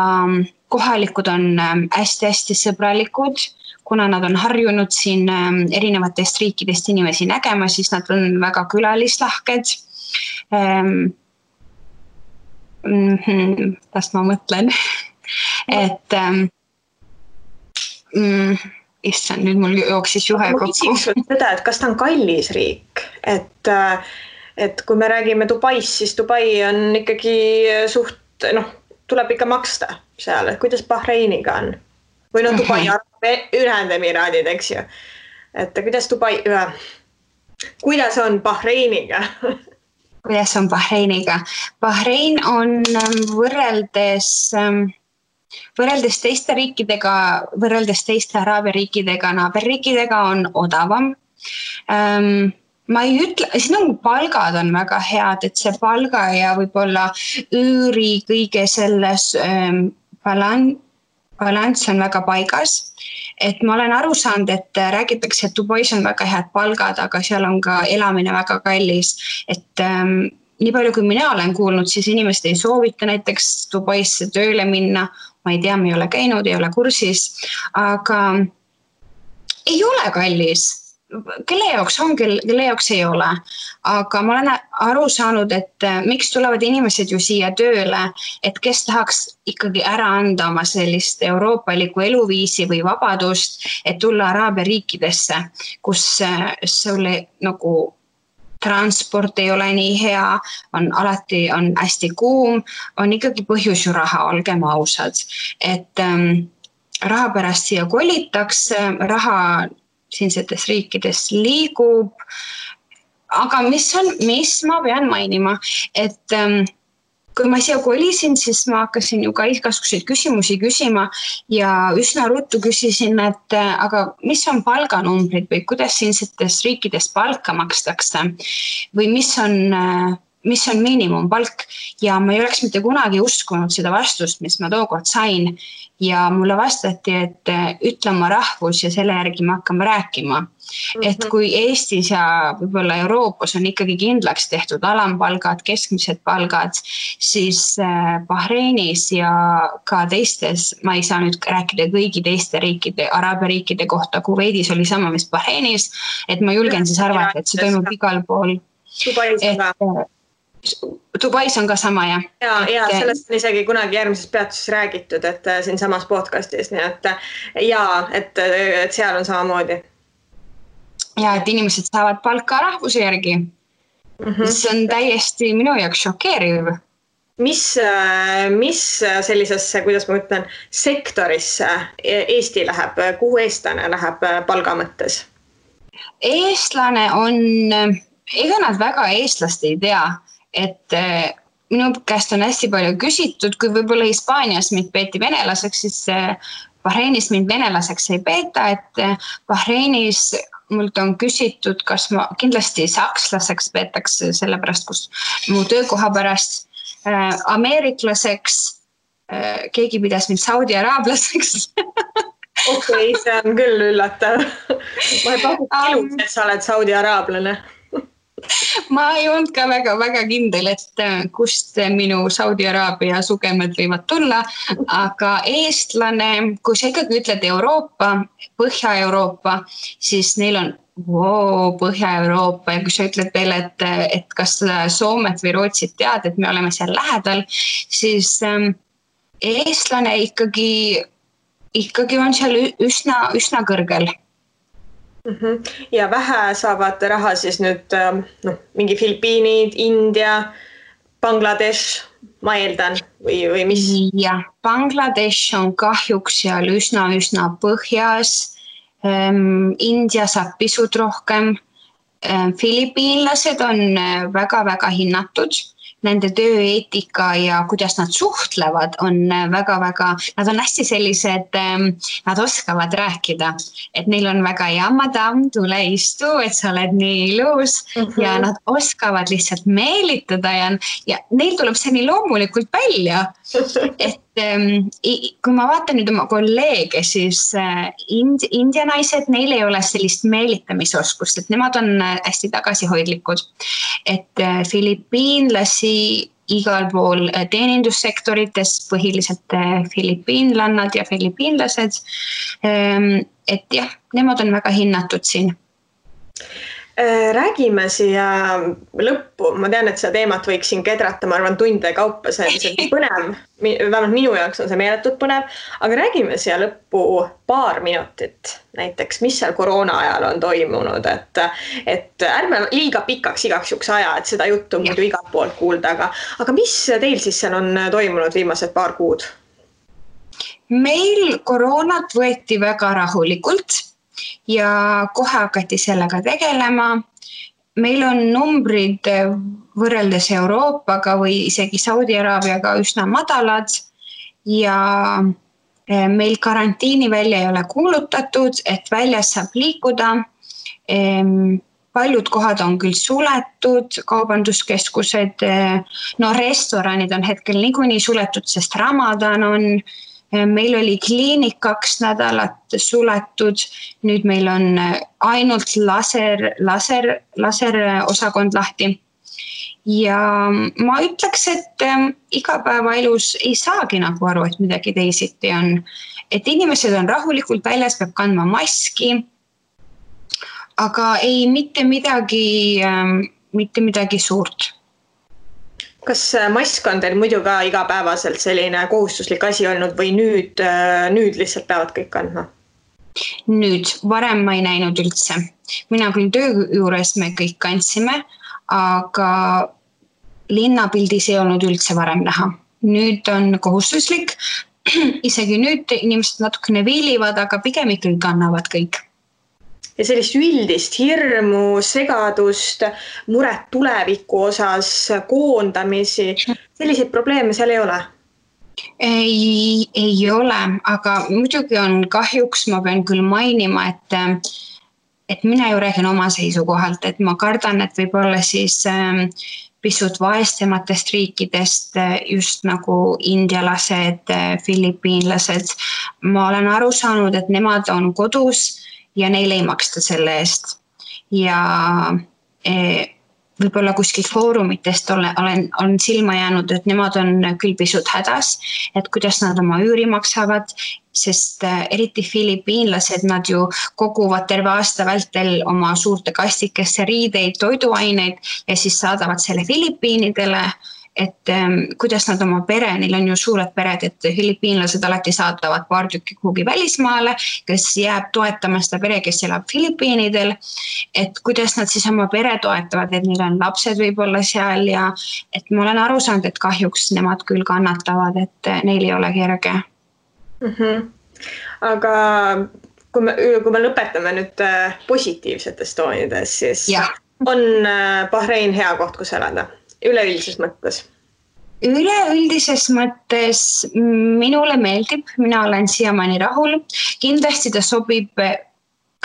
Speaker 3: kohalikud on hästi-hästi sõbralikud, kuna nad on harjunud siin erinevatest riikidest inimesi nägema, siis nad on väga külalislahked. Kas ma mõtlen, et issand, nüüd mul jooksis juhe kokku.
Speaker 2: Ma küsiks seda, et kas ta on kallis riik, et kui me räägime Dubaist, siis Dubai on ikkagi suht, tuleb ikka maksta seal, et kuidas Bahreiniga on? Või Dubai Ühendemiraadid, eks ju. Et kuidas on Bahreiniga?
Speaker 3: Kuidas on Bahreiniga? Bahrein on võrreldes teiste riikidega, võrreldes teiste Araabia riikidega, naaberriikidega on odavam. Ma ei ütle, siin palgad on väga head, et see palga ja võib-olla üüri kõige selles balanss on väga paigas. Et ma olen aru saanud, et räägitakse, et Dubais on väga head palgad, aga seal on ka elamine väga kallis. Et nii palju, kui mina olen kuulnud, siis inimesed ei soovita näiteks Dubaisse tööle minna. Ma ei tea, me ei ole käinud, ei ole kursis, aga ei ole kallis. Kelle jaoks on, kelle jaoks ei ole. Aga ma olen aru saanud, et miks tulevad inimesed ju siia tööle, et kes tahaks ikkagi ära anda oma sellist euroopalikku eluviisi või vabadust, et tulla Araabia riikidesse, kus sulle nagu transport ei ole nii hea, alati on hästi kuum, on ikkagi põhjus ju raha, olgem ausad. Et raha pärast siia kolitakse, raha siinsetes riikides liigub, aga mis ma pean mainima, et kui ma siia kolisin, siis ma hakkasin ju ka igasuguseid küsimusi küsima ja üsna ruttu küsisin, et aga mis on palganumbrid või kuidas siinsetes riikides palka makstakse või mis on mis on miinimumpalk ja ma ei oleks mitte kunagi uskunud seda vastust, mis ma tookord sain ja mulle vastati, et ütle oma rahvus ja selle järgi me hakkame rääkima. Et kui Eestis ja võib-olla Euroopas on ikkagi kindlaks tehtud alampalgad, keskmised palgad, siis Bahreinis ja ka teistes, ma ei saa nüüd rääkida kõigi teiste riikide, Araabia riikide kohta, Kuveidis oli sama, mis Bahreinis, et ma julgen siis arvata, et see toimub igal pool. Dubais on ka sama, jah.
Speaker 2: Ja sellest on isegi kunagi järgmises peatuses räägitud, et siin samas podcastis, nii et seal on samamoodi.
Speaker 3: Ja, et inimesed saavad palka rahvuse järgi. See on täiesti minu jaoks šokeeriv.
Speaker 2: Mis sellisesse, kuidas ma ütlen, sektorisse Eesti läheb, kuhu eestlane läheb palga mõttes?
Speaker 3: Eestlane on, ega nad väga eestlast ei tea, et minu käest on hästi palju küsitud, kui võib-olla Hispaanias mind peeti venelaseks, siis Bahreinis mind venelaseks ei peeta, et Bahreinis mult on küsitud, kas ma kindlasti sakslaseks peetakse sellepärast, kus mu töökoha pärast ameeriklaseks, keegi pidas mind Saudi araablaseks.
Speaker 2: Okei, see on küll üllatav. Ma ei pakub ilus, et sa oled Saudi araablane.
Speaker 3: Ma ei olnud ka väga kindel, et kust minu Saudi Araabia sugemed võivad tulla, aga eestlane, kui sa ikkagi ütled Euroopa, Põhja-Euroopa, siis neil on Põhja-Euroopa ja kui sa ütled veel, et kas Soomet või Rootsit tead, et me oleme seal lähedal, siis eestlane ikkagi on seal üsna kõrgel.
Speaker 2: Ja vähe saavad raha siis nüüd mingi Filipiinid, India, Bangladesh, ma eeldan, või mis?
Speaker 3: Ja, Bangladesh on kahjuks seal üsna põhjas. India saab pisut rohkem. Filipiinlased on väga hinnatud. Nende tööeetika ja kuidas nad suhtlevad on väga, nad on hästi sellised, nad oskavad rääkida, et neil on väga hea madam, tule istu, et sa oled nii ilus ja nad oskavad lihtsalt meelitada ja neil tuleb see nii loomulikult välja, et kui ma vaatan nüüd oma kolleege, siis India naised, neil ei ole sellist meelitamisoskust, et nemad on hästi tagasihoidlikud, et filipiinlasi igal pool teenindussektorites, põhiliselt filipiinlannad ja filipiinlased, et jah, nemad on väga hinnatud siin.
Speaker 2: Räägime siia lõppu, ma tean, et seda teemat võiks siin kedrata, ma arvan tunde kaupa, see on põnev, vähemalt minu jaoks on see meeletult põnev, aga räägime siia lõppu paar minutit näiteks, mis seal koroona ajal on toimunud, et ärme liiga pikaks igaks juks aja, et seda juttu muidu igalt poolt kuulda, aga mis teil siis seal on toimunud viimased paar kuud?
Speaker 3: Meil koroonat võeti väga rahulikult ja kohe hakati sellega tegelema. Meil on numbrid võrreldes Euroopaga või isegi Saudi Araabiaga üsna madalad ja meil karantiini välja ei ole kuulutatud, et väljas saab liikuda. Paljud kohad on küll suletud, kaubanduskeskused, restoranid on hetkel niikuinii suletud, sest Ramadan on. Meil oli kliinik 2 nädalat suletud, nüüd meil on ainult laser osakond lahti. Ja ma ütleks, et igapäevaelus ei saagi nagu aru, et midagi teisiti on. Et inimesed on rahulikult väljas, peab kandma maski, aga ei mitte midagi suurt.
Speaker 2: Kas mask on teil muidu ka igapäevaselt selline kohustuslik asi olnud või nüüd lihtsalt peavad kõik kandma?
Speaker 3: Nüüd, varem ma ei näinud üldse. Mina küll töö juures me kõik kandsime, aga linnapildis ei olnud üldse varem näha. Nüüd on kohustuslik, isegi nüüd inimesed natukene viilivad, aga pigem ikkagi kannavad kõik.
Speaker 2: Ja sellist üldist hirmu, segadust, muret tuleviku osas, koondamisi, selliseid probleeme seal ei ole?
Speaker 3: Ei ole, aga muidugi on kahjuks, ma pean küll mainima, et mina ju räägin oma seisukohalt, et ma kardan, et võib-olla siis pisut vaestematest riikidest, just nagu indialased, filipiinlased. Ma olen aru saanud, et nemad on kodus ja neile ei maksta selle eest. Ja võib-olla kuskil foorumitest on silma jäänud, et nemad on küll pisut hädas, et kuidas nad oma üüri maksavad, sest eriti filipiinlased, nad ju koguvad terve aasta vältel oma suurte kastikesse riideid, toiduaineid ja siis saadavad selle Filipiinidele, et kuidas nad oma pere, neil on ju suured pered, et filipiinlased alati saadavad paar tükki kuhugi välismaale, kes jääb toetama seda pere, kes elab Filipiinidel, et kuidas nad siis oma pere toetavad, et neil on lapsed võib-olla seal ja et ma olen aru saanud, et kahjuks nemad küll kannatavad, et neil ei ole kerge.
Speaker 2: Aga kui me lõpetame nüüd positiivsetest toonides, siis on Bahrein hea koht, kus elada? Üleüldises mõttes?
Speaker 3: Üleüldises mõttes minule meeldib, mina olen siiamaani rahul. Kindlasti ta sobib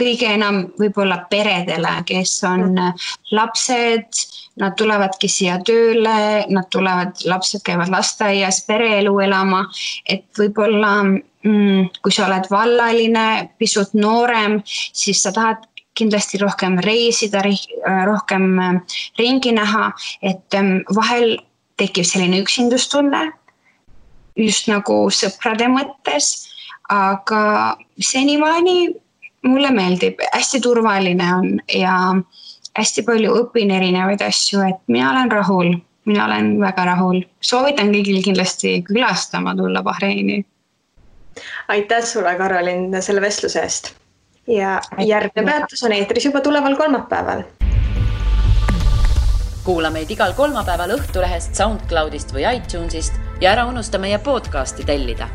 Speaker 3: kõige enam võib-olla peredele, kes on lapsed, nad tulevadki siia tööle, lapsed käivad lasteaias, pereelu elama, et võib-olla kui sa oled vallaline, pisut noorem, siis sa tahad kindlasti rohkem reisida, rohkem ringi näha, et vahel tekib selline üksindustunne, just nagu sõprade mõttes, aga senimaani mulle meeldib, hästi turvaline on ja hästi palju õpin erinevaid asju, et mina olen väga rahul. Soovitan kõigil kindlasti külastama tulla Bahreini.
Speaker 2: Aitäh sulle, Karolin, selle vestluse eest. Ja järgmine peatus on eetris juba tuleval kolmapäeval.
Speaker 1: Kuula meid igal kolmapäeval Õhtulehest, SoundCloudist või iTunesist ja ära unusta meie podcasti tellida.